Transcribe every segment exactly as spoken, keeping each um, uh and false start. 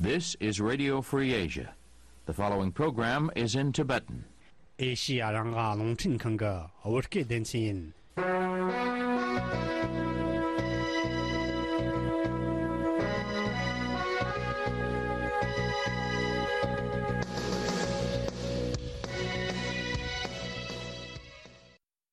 This is Radio Free Asia. The following program is in Tibetan. ཨེ་ཤི་ཡ་རང་དབང་རླུང་འཕྲིན་ཁང་གི་བོད་སྐད་སྡེ་ཚན་ཡིན།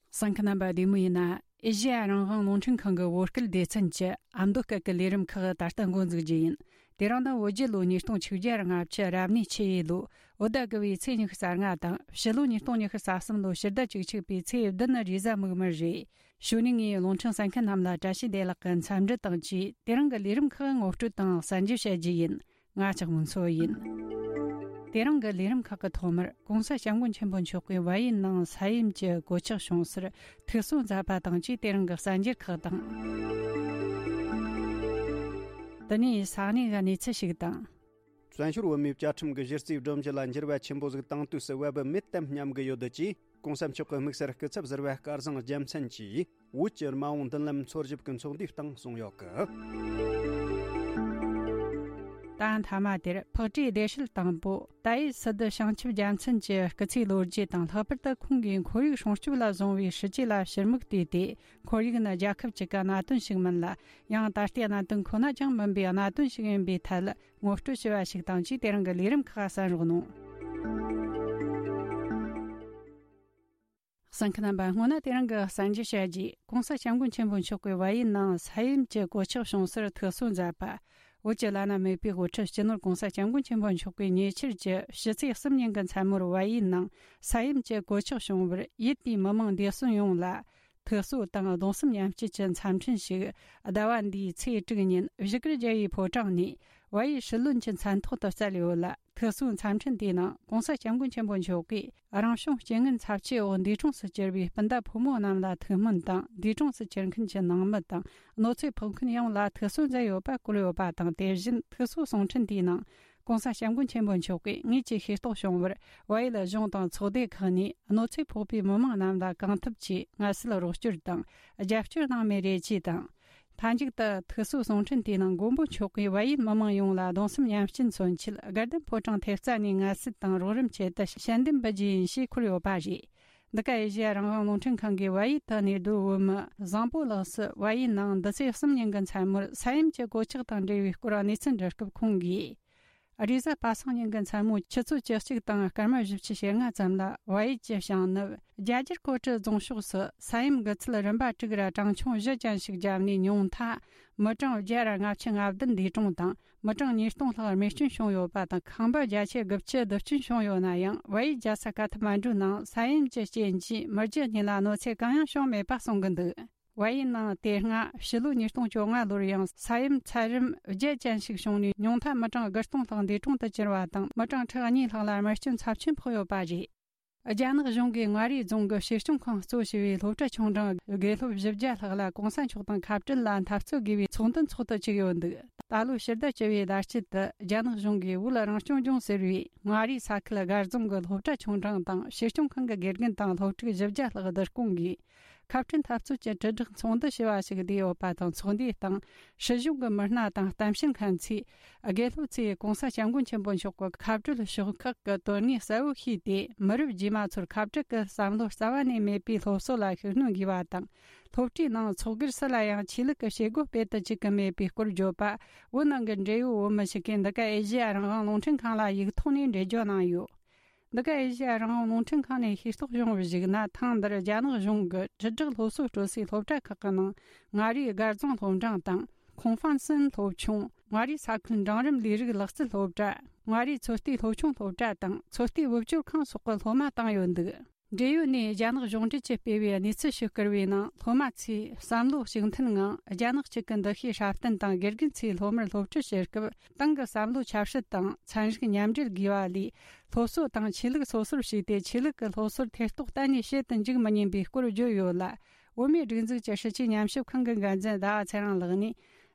གསན་མཁན་རྣམ་པ་བདེ་མོ་ཡིན་ན། ཨེ་ཤི་ཡ་རང་དབང་རླུང་འཕྲིན་ཁང་གི་བོད་སྐད་སྡེ་ཚན་གྱི་ཨ་མདོ་སྐད་ཀྱི་ལས་རིམ་ཁག་ད་ལྟ་འགོ་འཛུགས་རྒྱུ་ཡིན། དེ་རིང་ནི་བོད་རྒྱལ་ལོ་ཉིས་སྟོང་ཆིག་བརྒྱ་ལྔ་བཅུ་རབ་གནས་ཆུ་ཡོས་ལོ་བོད་ཟླ་དགུ་བའི་ཚེས་ཉི་ཤུ་རྩ་ལྔ་དང་ཕྱི་ལོ་ཉིས་སྟོང་ཉི་ཤུ་རྩ་གསུམ་ལོ་ཕྱི་ཟླ་བཅུ་གཅིག་པའི་ཚེས་བདུན་ནི་རེས་གཟའ་མིག་དམར་རེད། གཞུག་ནས་ངས་རླུང་འཕྲིན་གསན་མཁན་རྣམས་ལ་བཀྲ་ཤིས་བདེ་ལེགས་ཀྱི་འཚམས་འདྲི་དང་བཅས། དེ་རིང་གི་ལས་རིམ་ཁག་ངོ་སྤྲོད་དང་གསན་རྒྱུ་བྱ་རྒྱུ་ཡིན། ང་ལྕགས་མོ་མཚོ་ཡིན། དེ་རིང་གི་ལས་རིམ་ཁག་གི་ཐོག་མར་༸གོང་ས་༸སྐྱབས་མགོན་ཆེན་པོ་མཆོག་གིས་བལ་ཡུལ་ནང་ས་ཡོམ་གྱི་གོད་ཆག་བྱུང་སར་ཐུགས་གསོ་མཛད་པ་དང་བཅས། དེ་རིང་གི་གསར་འགྱུར་ཁག་དང་། དེ་ནས་ས་གནས་ཀྱི་གནས་ཚུལ་ཞིག་དང་། བཙན་བྱོལ་བོད་མིའི་བཅའ་ཁྲིམས་ཀྱི་གཞི་རྩའི་སྒྲོམ་གཞི་ལ་འགྱུར་བ་ཆེན་པོ་ཟིག་བཏང་དུས་སུ་བབ་མེད་དམ་སྙམ་གི་ཡོད་ཀྱིས། ༸གོང་ས་མཆོག་གི་དམིགས་བསལ་སྐུ་ཚབ་ཟུར་པ་སྐལ་བཟང་རྒྱལ་མཚན་གྱིས། བོད་ཀྱི་མ་འོངས་མདུན་ལམ་འཚོལ་ཞིབ་ཀྱི་ཚོགས་འདུའི་སྟེང་གསུངས་ཡོད་གི། ད་མཐའ་མ་དེར་ཕག་གྲུའི་བདེ་སྲིད་དང་པོ་ཏཱ་ཡི་སི་ཏུ་བྱང་ཆུབ་རྒྱལ་མཚན་གྱི་སྐུ་ཚེའི་ལོ་རྒྱུས་དང་། ལྷག་པར་དུ་ཁོང་གིས་ཁོར་ཡུག་སྲུང་སྐྱོབ་ལ་བཟུང་བའི་སྲིད་ཇུས་ལ་ཕྱིར་མིག་བལྟས་ཏེ། ཁོར་ཡུག་ནི་རྒྱལ་ཁབ་གཅིག་གི་གནད་དོན་ཞིག་མིན་ལ། ཡང་ད་ལྟའི་གནད་དོན་ཁོ་ན་ཅང་མིན་པའི་གནད་དོན་ཞིག་ཡིན་པའི་ཐད་ངོ་སྤྲོད་ཞུས་པ་ཞིག་དང་བཅས། དེ་རིང་གི་ལས་རིམ་ཁག་གསན་རོགས་གནང་། གསན་མཁན་རྣམ་པ། སྔོན་ན་དེ་རིང་གི་གསར་འགྱུར་བཤད་རྗེས། ༸གོང་ས་༸སྐྱབས་མགོན་ཆེན་པོ་མཆོག་གིས་བལ་ཡུལ་ནང་ས་ཡོམ་གྱི་གོད་ཆག་བྱུང་སར་ཐུགས་གསོ་མཛད་པ། བོད་ཀྱི་བླ་ན་མེད་པའི་དབུ་ཁྲིད་སྤྱི་ནོར་༸གོང་ས་༸སྐྱབས་མགོན་ཆེན་པོ་མཆོག་གིས་ཉེ་ཆར་གྱི་ཕྱི་ཚེས་གསུམ་ཉིན་གྱི་མཚན་མོར་བལ་ཡུལ་ནང་ས་ཡོམ་གྱི་གོད་ཆག་བྱུང་བར་ཡུལ་དེའི་མི་མང་འདས་གསོན་ཡོངས་ལ་ཐུགས་གསོ་དང་གདུང་སེམས་མཉམ་སྐྱེད་ཀྱི་འཚམས་འཕྲིན་ཞིག་ཟླ་བ་འདིའི་ཚེས་དྲུག་ཉིན་བཞུགས་སྒར་རྒྱལ་བའི་ཕོ་བྲང་ནས་བལ་ཡུལ་སྲིད་བློན་གྱི་མཚན་ཐོག་ཏུ་བསྩལ་ཡོད་ལ། ཐུགས་གསོའི་འཚམས་འཕྲིན་དེའི་ནང་༸གོང་ས་༸སྐྱབས་མགོན་ཆེན་པོ་མཆོག་གིས་རང་བྱུང་རྐྱེན་ངན་ཚབས་ཆེ་འོག་འདས་གྲོངས་སུ་གྱུར་པའི་སྤུན་ཟླ་ཕོ་མོ་རྣམས་ལ་ཐུགས་སྨོན་དང་། འདས་གྲོངས་སུ་གྱུར་མཁན་གྱི་ནང་མི་དང་གནོད་འཚེ་ཕོག་མཁན་ཡོངས་ལ་ཐུགས་གསོ་མཛད་ཡོད་པ་བཀོད་ཡོད་པ་དང་། དེ་བཞིན་ཐུགས་གསོ་གསུང་འཕྲིན་དེའི་ནང་༸གོང་ས་༸སྐྱབས་མགོན་ཆེན་པོ་མཆོག་གིས་ངེད་ཀྱི་ཤེས་རྟོགས་བྱུང་བར་བལ་ཡུལ་གཞུང་དང་ཚོགས་སྡེ་ཁག་ནས་གནོད་འཚེ་ཕོག་པའི་མི་མང་རྣམས་ལ་གང་ཐུབ་ཀྱིས་ངལ་གསོའི་རོགས་སྐྱོར་དང་རྒྱབ་སྐྱོར་གནང་མེད་རེད་ཅེས་དང་། མཐའ་མཇུག་ཏུ་ཐུགས་གསོའི་གསུང་འཕྲིན་དེའི་ནང་མགོན་པོ་མཆོག་གིས་བལ་ཡུལ་མི་མང་ཡོངས་ལ་གདུང་སེམས་མཉམ་སྐྱེད་མཚོན་ཆེད་དགའ་ལྡན་ཕོ་བྲང་ཐེབས་རྩ་ནས་ངལ་གསོ་དང་རོགས་རམ་ཆེད་དུ་ཞལ་འདེབས་འབུལ་རྒྱུ་ཡིན་ཞེས་འཁོད་ཡོད་པ་རེད། འདི་ག་ཨེ་ཤེ་ཡ་རང་དབང་རླུང་འཕྲིན་ཁང་གིས་བལ་ཡུལ་དུ་གནས་སྡོད་བོད་མི་བཟང་པོ་ལགས་སུ་བལ་ཡུལ་ནང་འདི་ཚེས་གསུམ་ཉིན་གྱི་མཚན་མོར་ས་ཡོམ་གྱི་གོད་ཆག་དང་འབྲེལ་བའི་སྐོར་གནས་ཚུལ་འདྲི་སྐབས་ཁོང་གིས། རེས་གཟའ་པ་སངས་ཉིན་གྱི་མཚན་མོ་ཆུ་ཚོད་བཅུ་གཅིག་དང་སྐར་མ་བཞི་བཅུ་ཞེ་ལྔ་ཙམ་ལ་བལ་ཡུལ་གྱི་བྱང་ནུབ་རྒྱ་རྒྱལ་ཀོ་ཀྲི་རྫོང་ཕྱོགས་སུ་ས་ཡོམ་དགུ་ཚད་རིམ་པ་དྲུག་ར་གྲངས་ཆུང་བཞི་ཅན་ཞིག་བརྒྱབ་ནས་ཉུང་མཐའ་མི་གྲངས་བརྒྱ་ར་ལྔ་བཅུ་ང་བདུན་འདས་གྲོངས་དང་། མི་གྲངས་ཉིས་སྟོང་ལྷག་རྨས་སྐྱོན་བྱུང་ཡོད་པ་དང་། ཁང་པ་བརྒྱ་ཆ་དགུ་བཅུ་རྡུལ་སྐྱོན་བྱུང་ཡོད་ན་ཡང་། བལ་ཡུལ་རྒྱལ་ས་ཀ་ཐ་མན་ཌུ་ནང་ས་ཡོམ་གྱི་རྐྱེན་གྱིས་མི་རྒྱུ་གཉིས་ལ་གནོད་འཚེ་གང་ཡང་བྱུང་མེད་པ་གསུང་གི་འདུག་བལ་ཡུལ་ནང་དེ་སྔ་ཕྱི་ལོ་ཉིས་སྟོང་བཅོ་ལྔ་ལོར་ཡང་ས་ཡོམ་ཚད་རིམ་བརྒྱད་ཅན་ཞིག་བྱུང་ནས་ཉུང་མཐའ་མི་གྲངས་དགུ་སྟོང་ལྷག་འདས་གྲོངས་དུ་གྱུར་བ་དང་། མི་གྲངས་ཁྲི་གཉིས་ལྷག་ལ་རྨས་སྐྱོན་ཚབས་ཆེན་ཕོག་ཡོད་པ་རེད། རྒྱ་ནག་གཞུང་གིས་མངའ་རིས་རྫོང་གི་ཞིང་སྐྱོང་ཁང་གཙོ་བྱས་པའི་སློབ་གྲྭ་ཆུང་འབྲིང་དགེ་སློབ་བཞི་བརྒྱ་ལྷག་ལ་གོང་ས་མཆོག་དང་ཁ་བྲལ་ལ་འཐབ་རྩོད་དགོས་པའི་ཚོགས་འདུ་འཚོགས་དུ་བཅུག་ཡོད་འདུག་ད་ལོའི་ཕྱི་ཟླ་བཅུ་པའི་ཟླ་དཀྱིལ་དུ་རྒྱ་ནག་གཞུང་གིས་བོད་རང་སྐྱོང་ལྗོངས་ཟེར་བའི་མངའ་རིས་ས་ཁུལ་སྒར་རྫོང་གི་སློབ་གྲྭ་ཆུང་འབྲིང་དང་ཞིང་སྐྱོང་ཁང་གི་དགེ་རྒན་དང་སློབ་ཕྲུག་བཞི་བརྒྱ་ལྷག་བསྡུ་སྐོང་གིས། ཁ་བྲལ་འཐབ་རྩོད་ཀྱི་དྲིལ་བསྒྲགས་ཚོགས་འདུ་ཞེས་པ་ཞིག་བསྡུས་ཡོད་པ་དང་། ཚོགས་འདུའི་སྟེང་སྲིད་གཞུང་གི་མི་སྣ་དང་གཏམ་བཤད་མཁན་ཚོས་དགེ་སློབ་ཚོས་གོང་ས་སྐྱབས་མགོན་ཆེན་པོ་མཆོག་གི་ཁ་བྲལ་ཕྱོགས་ཁག་གི་དོན་དངོས་གསལ་བོ་ཤེས་ཏེ། མི་རབས་རྗེས་མ་ཚོར་ཁ་བྲལ་གྱི་བསམ་བློ་རྩ་བ་ནས་མེད་པའི་སློབ་གསོ་ལ་ཤུགས་སྣོན་དགོས་པ་དང་། སློབ་གྲྭའི་ནང་ཚོགས་སྒེར་སུ་ལ་ཡང་ཆོས་ལུགས་ཀྱི་བྱེད་སྒོ་སྤེལ་དུ་བཅུག་གི་མེད་པའི་སྐོར་བརྗོད་པ། བོད་ནང་གི་འབྲེལ་ཡོད་བོད་མི་ཞིག་གིས་འདི་ག་ཨེ་ཤེ་ཡ་རང་དབང་རླུང་འཕྲིན་ཁང་ལ་ཡིག་ཐོག་ནས་འགྲེལ་བརྗོད་གནང་ཡོད། འདི་ག་ཨེ་ཤེ་ཡ་རང་དབང་རླུང་འཕྲིན་ཁང་ནས་ཤེས་རྟོགས་བྱུང་བར་གཞིགས་ན། ཐེངས་འདིར་རྒྱ་ནག་གཞུང་གིས་དྲིལ་བསྒྲགས་སློབ་གསོ་སྤྲོད་སའི་སློབ་གྲྭ་ཁག་གི་ནང་མངའ་རིས་སྒར་རྫོང་སློབ་འབྲིང་དང་། ཁོང་ཧྥང་སན་སློབ་ཆུང་། མངའ་རིས་ས་ཁུལ་འབྲིང་རིམ་ལས་རིགས་ལག་རྩལ་སློབ་གྲྭ། མངའ་རིས་ཚོད་ལྟའི་སློབ་ཆུང་སློབ་གྲྭ་དང་། ཚོད་ལྟའི་བུ་བཅོལ་ཁང་སོགས་ཀྱི་སློབ་མ་བཏང་ཡོད་འདུག་འབྲེལ་ཡོད་ནས་རྒྱ་ནག་གཞུང་འབྲེལ་གྱིས་སྤེལ་བའི་གནས་ཚུལ་ཞིག་བསྐུར་བའི་ནང་། སློབ་མ་ཚོས་བསམ་བློ་གཅིག་མཐུན་ངང་རྒྱ་ནག་གཅིག་གི་འདུ་ཤེས་སྲ་བརྟན་དང་། དགེ་རྒན་ཚོས་སློབ་མར་སློབ་ཁྲིད་བྱེད་སྐབས། ཏང་གི་བསམ་བློ་ཆབ་སྲིད་དང་ཚན་རིག་མཉམ་འབྲེལ་དགོས་པ་ལས། སློབ་གསོ་དང་ཆོས་ལུགས་སོ་སོར་ཕྱེ་སྟེ། ཆོས་ལུགས་ཀྱི་སློབ་གསོར་ཐེ་གཏོགས་གཏན་ནས་བྱེད་དུ་འཇུག་མི་ཉན་པའི་སྐོར་བརྗོད་ཡོད་ལ། བོད་མིའི་སྒྲིག་འཛུགས་ཀྱི་སྲིད་བྱུས་ཉམས་ཞིབ་ཁང་གི་འགན་འཛིན་ཟླ་བ་ཚེ་རིང་ལགས་ནས།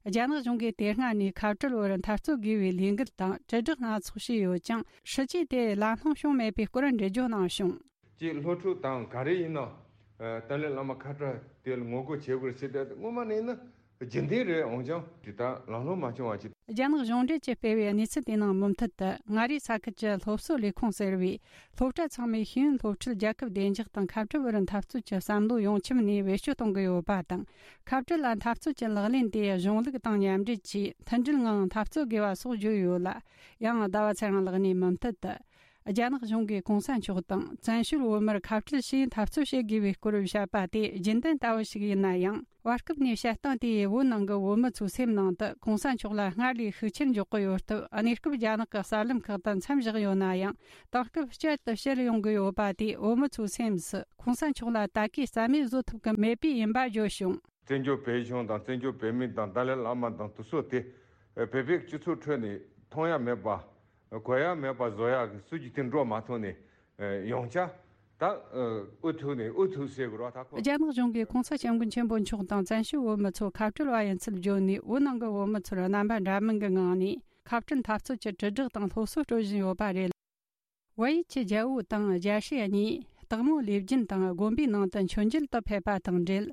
རྒྱ་ནག་གཞུང་གིས་དེ་སྔ་ནས་ཁ་བྲལ་བར་འཐབ་རྩོད་དགོས་པའི་ལས་འགུལ་དང་དྲིལ་བསྒྲགས་སྣ་ཚོགས་བྱས་ཡོད་ཀྱང་། སྲིད་བྱུས་དེ་ལམ་ལྷོང་བྱུང་མེད་པའི་སྐོར་འགྲེལ་བརྗོད་གནང་བྱུང་། ཅེས་སློབ་ཕྲུག་དང་ག་རེ་ཡིན་ན། ཨ། ཏཱ་ལའི་བླ་མ་ཁ་བྲལ་དེ་ལ་ངོ་རྒོལ་བྱེད་དགོས་ཟེར་ཏེ། སྔོན་མ་ནས་ནི་ རྒྱུན་ལྡན་རེད། འོན་ཀྱང་དེ་ལྟར་ལམ་ལྷོང་མ་བྱུང་བ་ཅིག་རྒྱ་ནག་གཞུང་འབྲེལ་གྱིས་སྤེལ་བའི་གནས་ཚུལ་དེའི་ནང་མུ་མཐུད་དུ། མངའ་རིས་ས་ཁུལ་གྱི་སློབ་གསོ་ལས་ཁུངས་ཟེར་བས། སློབ་གྲྭ་ཚང་མས་ཤེས་ཡོན་སློབ་ཁྲིད་རྒྱལ་ཁབ་བདེ་འཇགས་དང་ཁ་བྲལ་བར་འཐབ་རྩོད་ཀྱི་བསམ་བློ་ཡོངས་ཁྱབ་ནས་བེད་སྤྱོད་གཏོང་གི་ཡོད་པ་དང་། ཁ་བྲལ་ལ་འཐབ་རྩོད་ཀྱི་ལག་ལེན་དེ་གཞུང་ལུགས་དང་མཉམ་འབྲེལ་གྱིས་མཐུན་སྒྲིལ་ངང་འཐབ་རྩོད་དགོས་པ་སོགས་བརྗོད་ཡོད་ལ། ཡང་ཟླ་བ་ཚེ་རིང་ལགས་ནས་མུ་མཐུད་དུ། རྒྱ་ནག་གཞུང་གིས་གོང་ས་མཆོག་དང་བཙན་བྱོལ་བོད་མིར་ཁ་བྲལ་ཞེས་འཐབ་རྩོད་བྱེད་དགོས་པའི་སྐོར་བཤད་པ་དེ་རྒྱུན་ལྡན་ལྟ་བུ་ཞིག་ཡིན་ན་ཡང་། བར་སྐབས་ནས་བཤད་སྟངས་དེས་བོད་ནང་གི་བོད་མི་ཚོའི་སེམས་ནང་དུ་གོང་ས་མཆོག་ལ་སྔར་ལས་ཤུགས་ཆེར་འཇོག་གི་ཡོད་སྟབས། གནས་སྐབས་རྒྱ་ནག་གི་གསར་ལམ་ཁག་ཏུ་མཚམས་བཞག་ཡོད་ན་ཡང་། དེང་སྐབས་བསྐྱར་དུ་བཤད་ཡོང་གི་ཡོད་པ་དེས་བོད་མི་ཚོའི་སེམས་སུ་གོང་ས་མཆོག་ལ་ད་གའི་རྩ་མེད་བཟོ་ཐུབ་ཀྱི་མེད་པས་ཡིན་པ་བརྗོད་བྱུང་། བཙན་བྱོལ་བོད་གཞུང་དང་བཙན་བྱོལ་བོད་མི་དང་ཏཱ་ལའི་བླ་མ་དང་དེ་ཚོ་དེ་བོད་པའི་སྤྱི་ཚོགས་ཁྲོད་ནས་མཐོང་ཡ་མེད་པ། གོ་ཡ་མེད་པ་བཟོ་ཡ་གི་སྲོལ་གྱི་དེ་འགྲོ་མ་ཐུབ་ནས་ཡོང་ཆ། ད་ཨུ་ཐུག་ནས་ཨུ་ཐུག་ཟེར་དགོས་ར། ད་ཁོ། རྒྱ་ནག་གཞུང་གིས་གོང་ས་སྐྱབས་མགོན་ཆེན་པོ་མཆོག་དང་བཙན་བྱོལ་བོད་མི་ཚོ་ཁ་བྲལ་བ་ཡིན་ཚུལ་བརྗོད་ནས། བོད་ནང་གི་བོད་མི་ཚོར་རྣམ་པ་འདྲ་མིན་གྱི་ངང་ནས་ཁ་བྲལ་འཐབ་རྩོད་ཀྱི་དྲིལ་བསྒྲགས་དང་སློབ་གསོ་སྤྲོད་བཞིན་ཡོད་པ་རེད། བལ་ཡུལ་གྱི་རྒྱལ་པོ་དང་རྒྱལ་སྲས་གཉིས་སྟག་མོ་ལེབ་རྒྱུན་དང་དགོན་པའི་ནང་དུ་མཆོད་མཇལ་དུ་ཕེབས་པ་དང་འབྲེལ།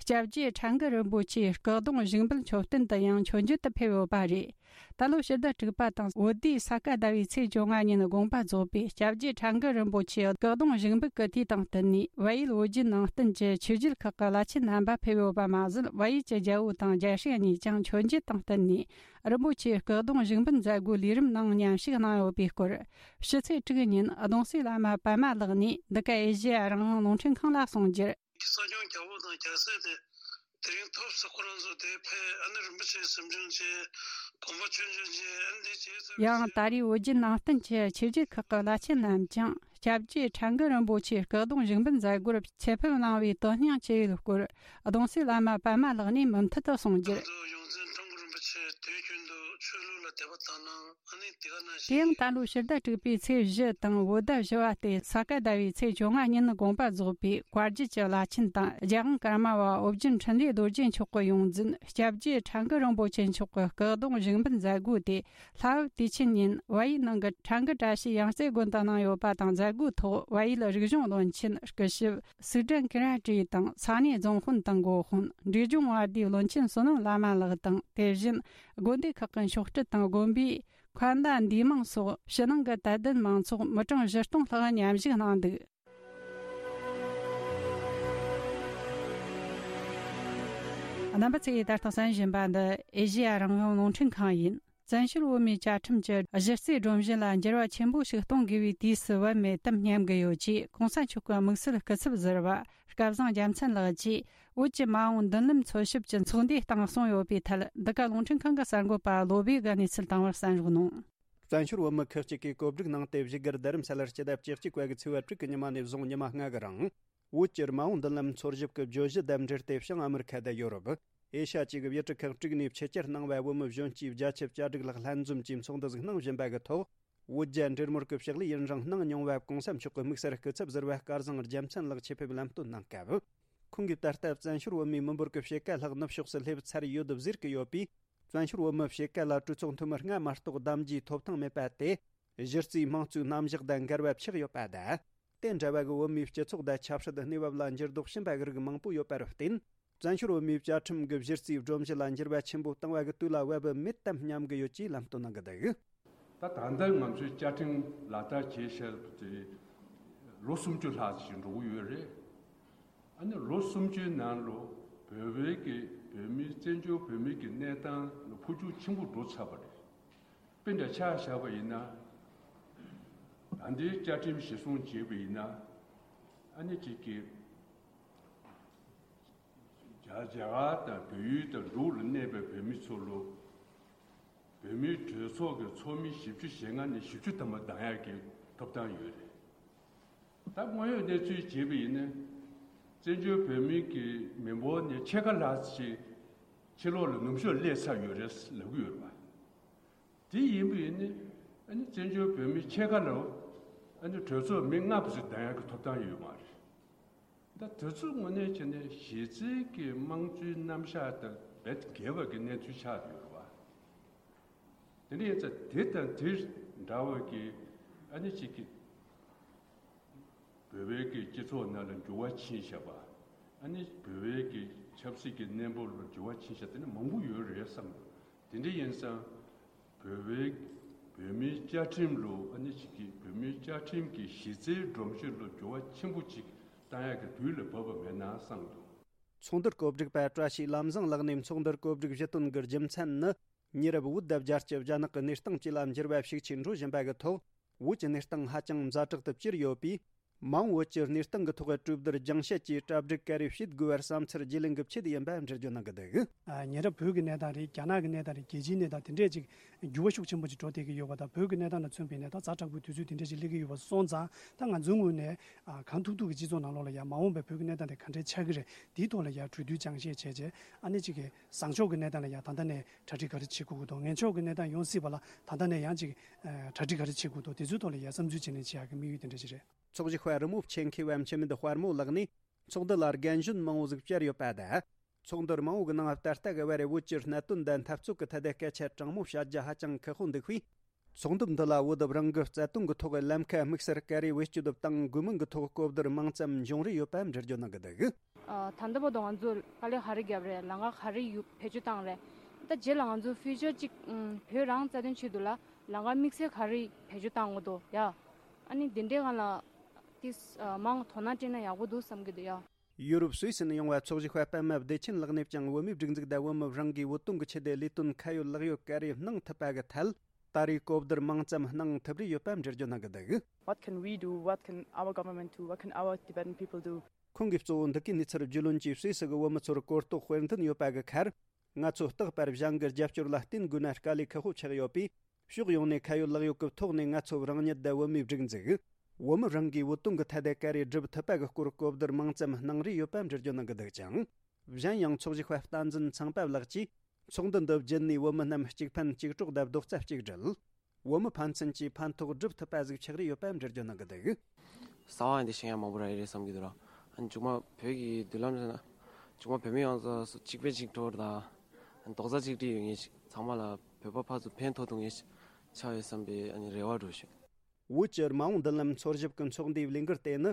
སྐྱབས་རྗེ་ཁྲ་འགུ་རིན་པོ་ཆེའི་སྐུ་གདུང་བཞུགས་འབུལ་མཆོད་རྟེན་དུ་ཡང་མཆོད་མཇལ་དུ་ཕེབས་ཡོད་པ་རེད། ད་ལོ་ཕྱི་ཟླ་དྲུག་པ་དང་བོད་ཟླའི་ས་ག་ཟླ་བའི་ཚེས་བཅོ་ལྔ་ཉིན་དགོངས་པ་རྫོགས་པའི་སྐྱབས་རྗེ་ཁྲ་འགུ་རིན་པོ་ཆེའི་སྐུ་གདུང་བཞུགས་འབུལ་གྱི་དུས་དང་བསྟུན་ནས། བལ་ཡུལ་ཨོ་རྒྱན་ནང་བསྟན་གྱི་ཆོས་བརྒྱུད་ཁག་གི་བླ་ཆེན་རྣམ་པ་ཕེབས་ཡོད་པ་མ་ཟད། བལ་ཡུལ་གྱི་རྒྱལ་པོ་དང་རྒྱལ་སྲས་གཉིས་ཀྱང་མཆོད་མཇལ་དང་བསྟུན་ནས། རིན་པོ་ཆེའི་སྐུ་གདུང་བཞུགས་འབུལ་མཛད་སྒོའི་ལས་རིམ་ནང་མཉམ་ཞུགས་གནང་ཡོད་པའི་སྐོར། ཕྱི་ཚེས་དྲུག་ཉིན་གདུང་སྲས་བླ་མ་པདྨ་ལགས་ནས་འདི་ག་ཨེ་ཤེ་ཡ་རང་དབང་རླུང་འཕྲིན་ཁང་ལ་གསུངས་རྒྱུར། གསོ་སྐྱོང་རྒྱལ་པོ་དང་རྒྱལ་སྲས་དེ་དེ་རིང་ཐོབ་སོང་། ཁོ་རང་ཚོ་དེ་ཕེབས། ཨ་ནི་རིན་པོ་ཆེ་གཟིམ་ཆུང་བྱས། དགོན་པ་ཆུང་ཆུང་བྱས། ཨ་ནི་དེ་བྱས་ཚར། ཡང་ད་རེས་ཨོ་རྒྱན་ནང་བསྟན་གྱི་ཆོས་བརྒྱུད་ཁག་གི་བླ་ཆེན་རྣམས་ཀྱང་སྐྱབས་རྗེ་ཁྲ་འགུ་རིན་པོ་ཆེའི་སྐུ་གདུང་བཞུགས་འབུལ་མཛད་སྒོར་ཆེད་ཕེབས་གནང་བའི་དོན་སྙིང་ཆེ་བའི་སྐོར། གདུང་སྲས་བླ་མ་པདྨ་ལགས་ནས་མུ་མཐུད་དུ་གསུངས་རྒྱུར། ད་དུང་ཡོངས་འཛིན་ཀྲང་གུ་རིན་པོ་ཆེ་དུས་རྒྱུན་དུ་ཆོས་ལུགས་ལ་དད་པ་དག་སྣང་། ཨ་ནི་དེ་ག་ནང་བཞིན། དེ་ཡང་ད་ལོ་ཕྱི་ཟླ་དྲུག་པའི་ཚེས་བཞི་དང་བོད་ཟླ་བཞི་པ་སྟེ་ས་ག་ཟླ་བའི་ཚེས་བཅོ་ལྔ་ཉིན་དགོངས་པ་རྫོགས་པའི་བཀའ་བརྒྱུད་ཀྱི་བླ་ཆེན་དང་། རྒྱལ་དབང་ཀརྨ་པ་ཨོ་རྒྱན་འཕྲིན་ལས་རྡོ་རྗེ་མཆོག་གི་ཡོངས་འཛིན་སྐྱབས་རྗེ་ཁྲ་འགུ་རིན་པོ་ཆེ་མཆོག་གི་སྐུ་གདུང་བཞུགས་འབུལ་མཛད་སྒོ་དེ། ལྷ་བབས་དུས་ཆེན་ཉིན་བལ་ཡུལ་ནང་གི་ཁྲ་འགུ་བཀྲ་ཤིས་ཡང་རྩེ་དགོན་དུ་གནང་ཡོད་པ་དང་། མཛད་སྒོའི་ཐོག་བལ་ཡུལ་རིག་གཞུང་བློན་ཆེན་སྐུ་ཞབས་སིག་ཀྲན་ཀི་ར་ཀྲི་དང་། ས་གནས་རྫོང་དཔོན་དང་འགོ་དཔོན། འབྲས་ལྗོངས་དབར་དུས་བློན་ཆེན་བསོད་ནམས་བླ་མ་ལགས་དང་། དེ་བཞིན་དགོན་སྡེ་ཁག་གི་མཆོག་སྤྲུལ་དང་དགོན་པའི་མཁན་བླ་འདུས་མང་སོགས་ཕྱི་ནང་གི་དད་ལྡན་མང་ཚོགས་མི་གྲངས་བཞི་སྟོང་ལྷག་མཉམ་ཞུགས་གནང་འདུག་རྣམ་པ་ཚོས་ད་ལྟ་གསན་བཞིན་པ་འདི་ཨེ་ཤེ་ཡ་རང་དབང་རླུང་འཕྲིན་ཁང་ཡིན། བཙན་བྱོལ་བོད་མིའི་བཅའ་ཁྲིམས་ཀྱི་གཞི་རྩའི་སྒྲོམ་གཞི་ལ་འགྱུར་བ་ཆེན་པོ་ཞིག་གཏོང་དགོས་པའི་དུས་སུ་བབ་མེད་དམ་སྙམ་གྱི་ཡོད་ཅེས་གོང་ས་མཆོག་གི་དམིགས་བསལ་སྐུ་ཚབ་ཟུར་པ་སྐལ་བཟང་རྒྱལ་མཚན་ལགས་ཀྱིས་བོད་ཀྱི་མ་འོངས་མདུན་ལམ་འཚོལ་ཞིབ་ཀྱི་ཚོགས་འདུའི་སྟེང་གསུངས་ཡོད་པའི་ཐད། འདི་ག་རླུང་འཕྲིན་ཁང་གི་གསར་འགོད་པ་བློ་བྷེ་གིས་གནས་ཚུལ་བཏང་བར་གསན་རོགས་གནང་། བཙན་བྱོལ་བོད་མི་ཁག་ཅིག་གིས་གོ་སྒྲིག་གནང་སྟེ་བཞུགས་སྒར་རྡ་རམ་ས་ལར་སྤྱི་ཟླ་བཅུ་གཅིག་པ་གི་ཚེས་པ་དྲུག་གི་ཉི་མ་ནས་བཟུང་ཉི་མ་ལྔ་གི་རིང་། བོད་ཀྱི་མ་འོངས་མདུན་ལམ་འཚོལ་ཞིབ་ཀྱི་བརྗོད་གཞི་དང་འབྲེལ་ཏེ། བྱང་ཨ་མི་རི་ཁ་དང་ཡོ་རོབ། ཨེ་ཤ་ཡ་བཅས་ཀྱི་ཡུལ་གྲུ་ཁག་དྲུག་ནས་ཕྱི་གྱར་གནང་བའི་བོད་མི་གཞོན་སྐྱེས་བརྒྱ་ཆ་གྱ་དྲུག་ལྷག་ལྷན་འཛོམས་ཀྱིས་ཚོགས་འདུ་ཞིག་གནང་བཞིན་པ་གི་ཐོག་བོད་རྒྱ་འབྲེལ་མོལ་གྱི་ཕྱག་ལས་ཡུན་རིང་གནང་མྱོང་བའི་གོང་ས་མཆོག་གི་དམིགས་བསལ་སྐུ་ཚབ་ཟུར་པ་སྐལ་བཟང་རྒྱལ་མཚན་ལགས་ཆེད་ཕེབས་ལམ་སྟོན་གནང་སྐབས། ཁོང་གིས་ད་ལྟ་བཙན་བྱོལ་བོད་མིའི་མི་འབོར་གྱི་ཕྱེད་ཀ་ལྷག་ནུབ་ཕྱོགས་སུ་སླེབས་ཚར་ཡོད་ཟེར་གྱི་ཡོད་པས། བཙན་བྱོལ་བོད་མི་ཕྱེད་ཀ་ལ་གྲོས་ཚོགས་འཐུས་མི་ལྔ་མ་གཏོགས་གདམ་རྒྱུའི་ཐོབ་ཐང་མེད་པ་དེ། གཞི་རྩའི་དམངས་གཙོའི་རྣམ་གཞག་དང་འགལ་བ་ཆགས་ཡོད་པ་དང་། དེ་འདྲ་བ་གི་བོད་མིའི་སྤྱི་ཚོགས་དང་ཆབ་སྲིད་གནས་བབ་ལ་འགྱུར་ལྡོག་ཕྱིན་པ་གི་རིགས་མང་པོ་ཡོད་པར་བརྟེན། བཙན་བྱོལ་བོད་མིའི་བཅའ་ཁྲིམས་ཀྱི་གཞི་རྩའི་སྒྲོམ་གཞི་ལ་འགྱུར་བ་ཆེན་པོ་བཏང་བ་གི་དུས་ལ་བབ་མེད་དམ་སྙམ་གི་ཡོད་ཅེས་ལམ་སྟོན་གནང་གི་འདུག། ད་ད་ལྟ་ང་ཚོའི་བཅའ་ཁྲིམས་ལག་བསྟར་བྱེད་བཞིན་པ་དེ་ལོ་སུམ་ཅུ་ལྷག་ཅིག་འགྲོ་གི་ཡོད་རེད། ཨ་ནི་ལོ་སུམ་ཅུའི་ནང་ལ་བོད་པའི་གི་བོད་མིའི་བཙན་བྱོལ་བོད་མིའི་གི་གནས་སྟངས་ལ་འཕོ་འགྱུར་ཆེན་པོ་འགྲོ་ཚར་བ་རེད། དཔེ་འདྲ་ཆ་བཞག་པ་ཡིན་ན། ད་ལྟའི་བཅའ་ཁྲིམས་གཞིར་བཟུང་བྱས་པ་ཡིན་ན། ཨ་ནི་གཅིག་གི་རྒྱ་རྒྱ་གར་དང་བལ་ཡུལ་དང་འབྲུག་ལ་གནས་པའི་བོད་མི་ཚོ་ལ། བོད་མིའི་གྲོས་ཚོགས་ཀྱི་ཚོགས་མི་བཞི་བཅུ་ཞེ་ལྔ་ནས་བཞི་བཅུ་ཐམ་པ་འདང་ཡག་གི་ཐོབ་ཐང་ཡོད་རེད། ད་དངོས་ཡོད་གནས་ཚུལ་བྱས་པ་ཡིན་ན། བཙན་བྱོལ་བོད་མིའི་གི་མི་འབོར་ནས་ཕྱེད་ཀ་ལྷག་ཅིག་ཕྱི་ལོགས་ལ་ནུབ་ཕྱོགས་སླེབས་ཚར་ཡོད་རེད་ལབ་ཀྱི་ཡོད་རེད་པ། དེ་ཡིན་པ་ཡིན་ན། ཨ་ནི་བཙན་བྱོལ་བོད་མི་ཕྱེད་ཀ་ལ་ཨ་ནི་གྲོས་ཚོགས་མི་ལྔ་བར་དུ་འདང་ཡག་གི་ཐོབ་ཐང་ཡོད་མ་རེད། ད་དེ་ཚོ་དངོས་གནས་བྱས་ན་གཞི་རྩའི་གི་དམངས་གཙོའི་རྣམ་གཞག་དང་རྦད་འགལ་བ་གི་གནས་ཚུལ་ཆགས་ཡོད་རེད་པ། དེ་འདྲ་ཡིན་ཙང་དེ་དང་དེ་འདྲ་བ་གི་ཨ་ནི་གཅིག་གི་བོད་པའི་གི་སྤྱི་ཚོགས་ནང་ལ་འགྱུར་བ་ཕྱིན་བཞག་པ། ཨ་ནི་བོད་པའི་གི་ ཆབ་སྲིད་ཀྱི་གནས་བབ་ལ་འགྱུར་བ་ཕྱིན་ཤག་དེ་ནི་མང་པོ་ཡོད་རེད་བསམ་འདུག་དེ་འདྲ་ཡིན་ཙང་། བོད་པའི་བོད་མིའི་བཅའ་ཁྲིམས་ལ་ཨ་ནི་ཅིག་གིས་བོད་མིའི་བཅའ་ཁྲིམས་ཀྱི་གཞི་རྩའི་སྒྲོམ་གཞི་ལ་འགྱུར་བ་ཆེན་པོ་ཅིག་བཏང་ཡག་གི་དུས་ལ་བབ་པ་མེད་ན་བསམ་འདུག་ཚོགས་འདུར་གོ་སྒྲིག་པ་བཀྲ་ཤིས་ལམ་བཟང་ལགས་ནས་ཚོགས་འདུར་གོ་སྒྲིག་ཞུ་དོན་གྱི་རྒྱུ་མཚན་ནི། ཉེ་རབས་བོད་དང་རྒྱལ་སྤྱི་རྒྱ་ནག་གི་གནས་སྟངས་བཅས་ལ་འགྱུར་བ་ཤུགས་ཆེ་འགྲོ་བཞིན་པ་གི་ཐོག་བོད་ཀྱི་གནས་སྟངས་ཧ་ཅང་ཛ་དྲག་ཏུ་གྱུར་ཡོད་པས། མ་འོངས་བོད་ཀྱི་གནས་སྟངས་ཀྱི་ཐོག་གྲོས་བསྡུར་རྒྱང་བཤད་ཀྱིས་གྲ་སྒྲིག་ག་རེ་བྱེད་དགོས་པར་བསམ་ཚུལ་བརྗེ་ལེན་གྱི་ཆེད་ཡིན་པ་འགྲེལ་བརྗོད་གནང་གི་འདུག་ཨ། ཉེ་རབས་བོད་ཀྱི་གནས་སྟངས་རེད། རྒྱ་ནག་གི་གནས་སྟངས་རེད། རྒྱལ་སྤྱིའི་གནས་སྟངས་དེ་འདྲས་ཅིག་འགྱུར་བ་ཤུགས་ཆེན་པོ་ཅིག་འགྲོ་བསྡད་ཀྱི་ཡོད་པ་དང་། བོད་ཀྱི་གནས་སྟངས་ལ་མཚོན་པའི་གནས་སྟངས་ཛ་དྲག་པོའི་དུས་ཚོད་དེ་འདྲས་ཅིག་སླེབས་ཀྱི་ཡོད་པ་སོང་ཙང་། ད་ང་ཚོའི་ངོས་ནས་ཨ། གང་ཐུབ་ཐུབ་ཀྱི་སྤྱི་ཚོགས་ནང་ལོགས་ལ་ཡང་མ་འོངས་པའི་བོད་ཀྱི་གནས་སྟངས་དེ་ག་འདྲས་ཆགས་ཀྱི་རེད། དེའི་ཐོག་ལ་ཡང་གྲོས་བསྡུར་རྒྱང་བཤད་བྱས་རྗེས། ཨ་ནི་ཅིག་གི་བཟང་ཕྱོགས་ཀྱི་གནས་སྟངས་ལ་ཡང་ད་ལྟ་ནས་གྲ་སྒྲིག་ག་རེ་བྱེད་དགོས་ཀྱི་འདུག་ངན་ཕྱོགས་ཀྱི་གནས་སྟངས་ཡོང་སྲིད་པ་ལ་ད་ལྟ་ནས་ཡང་ཅིག་ཨ། གྲ་སྒྲིག་ག་རེ་བྱེད་དགོས་འདུག་དེ་ཚོའི་ཐོག་ལ་ཡང་བསམ་ཚུལ་བརྗེ་ལེན་བྱེད་ཡག་གི་དམིགས་ཡུལ་དེ་འདྲ་ཞིག་རེད། ཚོགས་ཞུགས་པ་རི་མོ་ཆེན་མཁས་པ་འཆི་མེད་དཔལ་མོ་ལགས་ནས། ཚོགས་འདུ་ལ་རྒན་གཞོན་མང་བོ་ཟིག་བཅར་ཡོད་པ་དང་། ཚོགས་འདུར་མང་བོ་གི་ནང་ད་ལྟ་གི་བར་བོད་ཀྱི་གནད་དོན་དང་འཐབ་རྩོད་ཀྱི་ཐད་དེ་སྐད་ཆ་དྲང་མོ་བཤད་རྒྱུ་ཧ་ཅང་ཁག་པོ་འདུག་པས། ཚོགས་འདུ་འདི་ལ་བོད་དུ་རང་གི་རྩ་དོན་གྱི་ཐོག་ལམ་ཁ་དམིགས་བསལ་ག་རེ་བེད་སྤྱོད་དུ་བཏང་དགོས་མིན་གྱི་ཐོག་གོ་བསྡུར་མང་ཙམ་འབྱུང་རེ་ཡོད་པ་འགྲེལ་བརྗོད་གནང་གི་འདུག་ཨ། ད་ལྟ་བར་དུ་ང་ཚོས་དཀའ་ལས་ག་རེ་བརྒྱབ་རེད། ལམ་ཁ་ག་རེ་ཡོད་བེད་སྤྱོད་བཏང་རེད། ད་རྗེས་ལ་ང་ཚོ་ཕིའུ་ཅར་ཅིག་ཨམ། བོད་རང་རྩ་དོན་ཆེད་དུ་ལ་ལམ་ཁ་དམིགས་བསལ་ག་རེ་བེད་སྤྱོད་བཏང་དགོས་འདུག་ཡ། ཨ་ནི་འདི་འདྲའི་སྒང་ལ་ཏིས་ཨ། མང་དོ་སྣང་སྤྲད་ན་ཡག་པོ་འདུག་བསམ་གྱི་འདུག་ཡ། ཡུ་རོབ་སུད་སི་ནས་ཡོང་བ་ཚོགས་ཞུགས་པ་པད་མ་བདེ་ཆེན་ལགས་ནས་ཀྱང་བོད་མིའི་སྒྲིག་འཛུགས་དང་བོད་མི་རང་གིས་བོད་དོན་གྱི་ཆེད་དུ་ལས་དོན་ཁ་ཡོད་ལག་ཡོད་ག་རེ་གནང་ཐུབ་པ་གི་ཐད་ད་རེས་གོ་བསྡུར་མང་ཙམ་གནང་ཐུབ་རེ་ཡོད་པ་འགྲེལ་བརྗོད་གནང་གི་འདུག What can we do? What can our government do? What can our Tibetan people do? ཁོང་གིས་གཙོ་བོ་འདི་གའི་གནས་ཚུལ་རྒྱུས་ལོན་གྱིས་སུད་སི་གི་བོད་མི་ཚོར་གོ་རྟོགས་སྤེལ་འདུན་ཡོད་པ་གི་ཁར། ང་ཚོ་རྟག་པར་གཞན་གྱི་རྒྱབ་སྐྱོར་ལ་བརྟེན་དགོས་ན་དཀའ་ལས་ཁག་པོ་ཆགས་ཡོད་པས། ཕྱོགས་ཡོངས་ནས་ཁ་ཡོད་ལག་ཡོད་ཀྱི་ཐོག་ནས་ང་ཚོ་རང་ཉིད་དང་བོད་མིའི་སྒྲིག་འཛུགས། བོད་མི་རང་གིས་བོད་དོན་གྱི་ཐད་དེ་ག་རེ་སྒྲུབ་ཐུབ་པ་གི་སྐོར་གོ་བསྡུར་མང་ཙམ་གནང་རེ་ཡོད་པ་འགྲེལ་བརྗོད་གནང་གི་འདུག་ཅིང་། གཞན་ཡང་ཚོགས་ཞུགས་པ་བསྟན་འཛིན་ཚངས་པ་ལགས་ཀྱིས་ཚོགས་འདུ་འདི་བརྒྱུད་ནས་བོད་མི་རྣམས་གཅིག་ཕན་གཅིག་གྲོགས་དང་རྡོག་རྩ་གཅིག་སྒྲིལ། བོད་མི་ཕན་ཚུན་གྱི་ཕན་ཐོགས་སྒྲུབ་ཐུབ་པ་ཟིག་ཆགས་རེ་ཡོད་པ་འགྲེལ་བརྗོད་གནང་གི་འདུག་གསང་བ་འདི་ཤེས་ཡ་མང་པོ་རག་གི་རེད་བསམ་གྱི་འདུག་ར། ཨ་ནི་མཇུག་མ་བོད་ཀྱི་མདུན་ལམ་ཟེར་ན། མཇུག་མ་བོད་མི་ཡོངས་རྫོགས་གཅིག་ཕན་གཅིག་གྲོགས་དང་། རྡོག་རྩ་གཅིག་སྒྲིལ་ཡོད་མཁན་ཞིག་ཚང་མ་ལ་བོད་པ་ཕར་ཚུར་ཕན་ཐོགས་ཐུབ་མཁན་ཞིག་ཆགས་ཡོད་བསམ་པའི་ཨ་ནི་རེ་བ་འགྲོ་བཞིན། བོད་ཀྱི་མ་འོངས་མདུན་ལམ་འཚོལ་ཞིབ་ཀྱི་ཚོགས་འདུའི་ལས་འགུལ་དེ་ནི།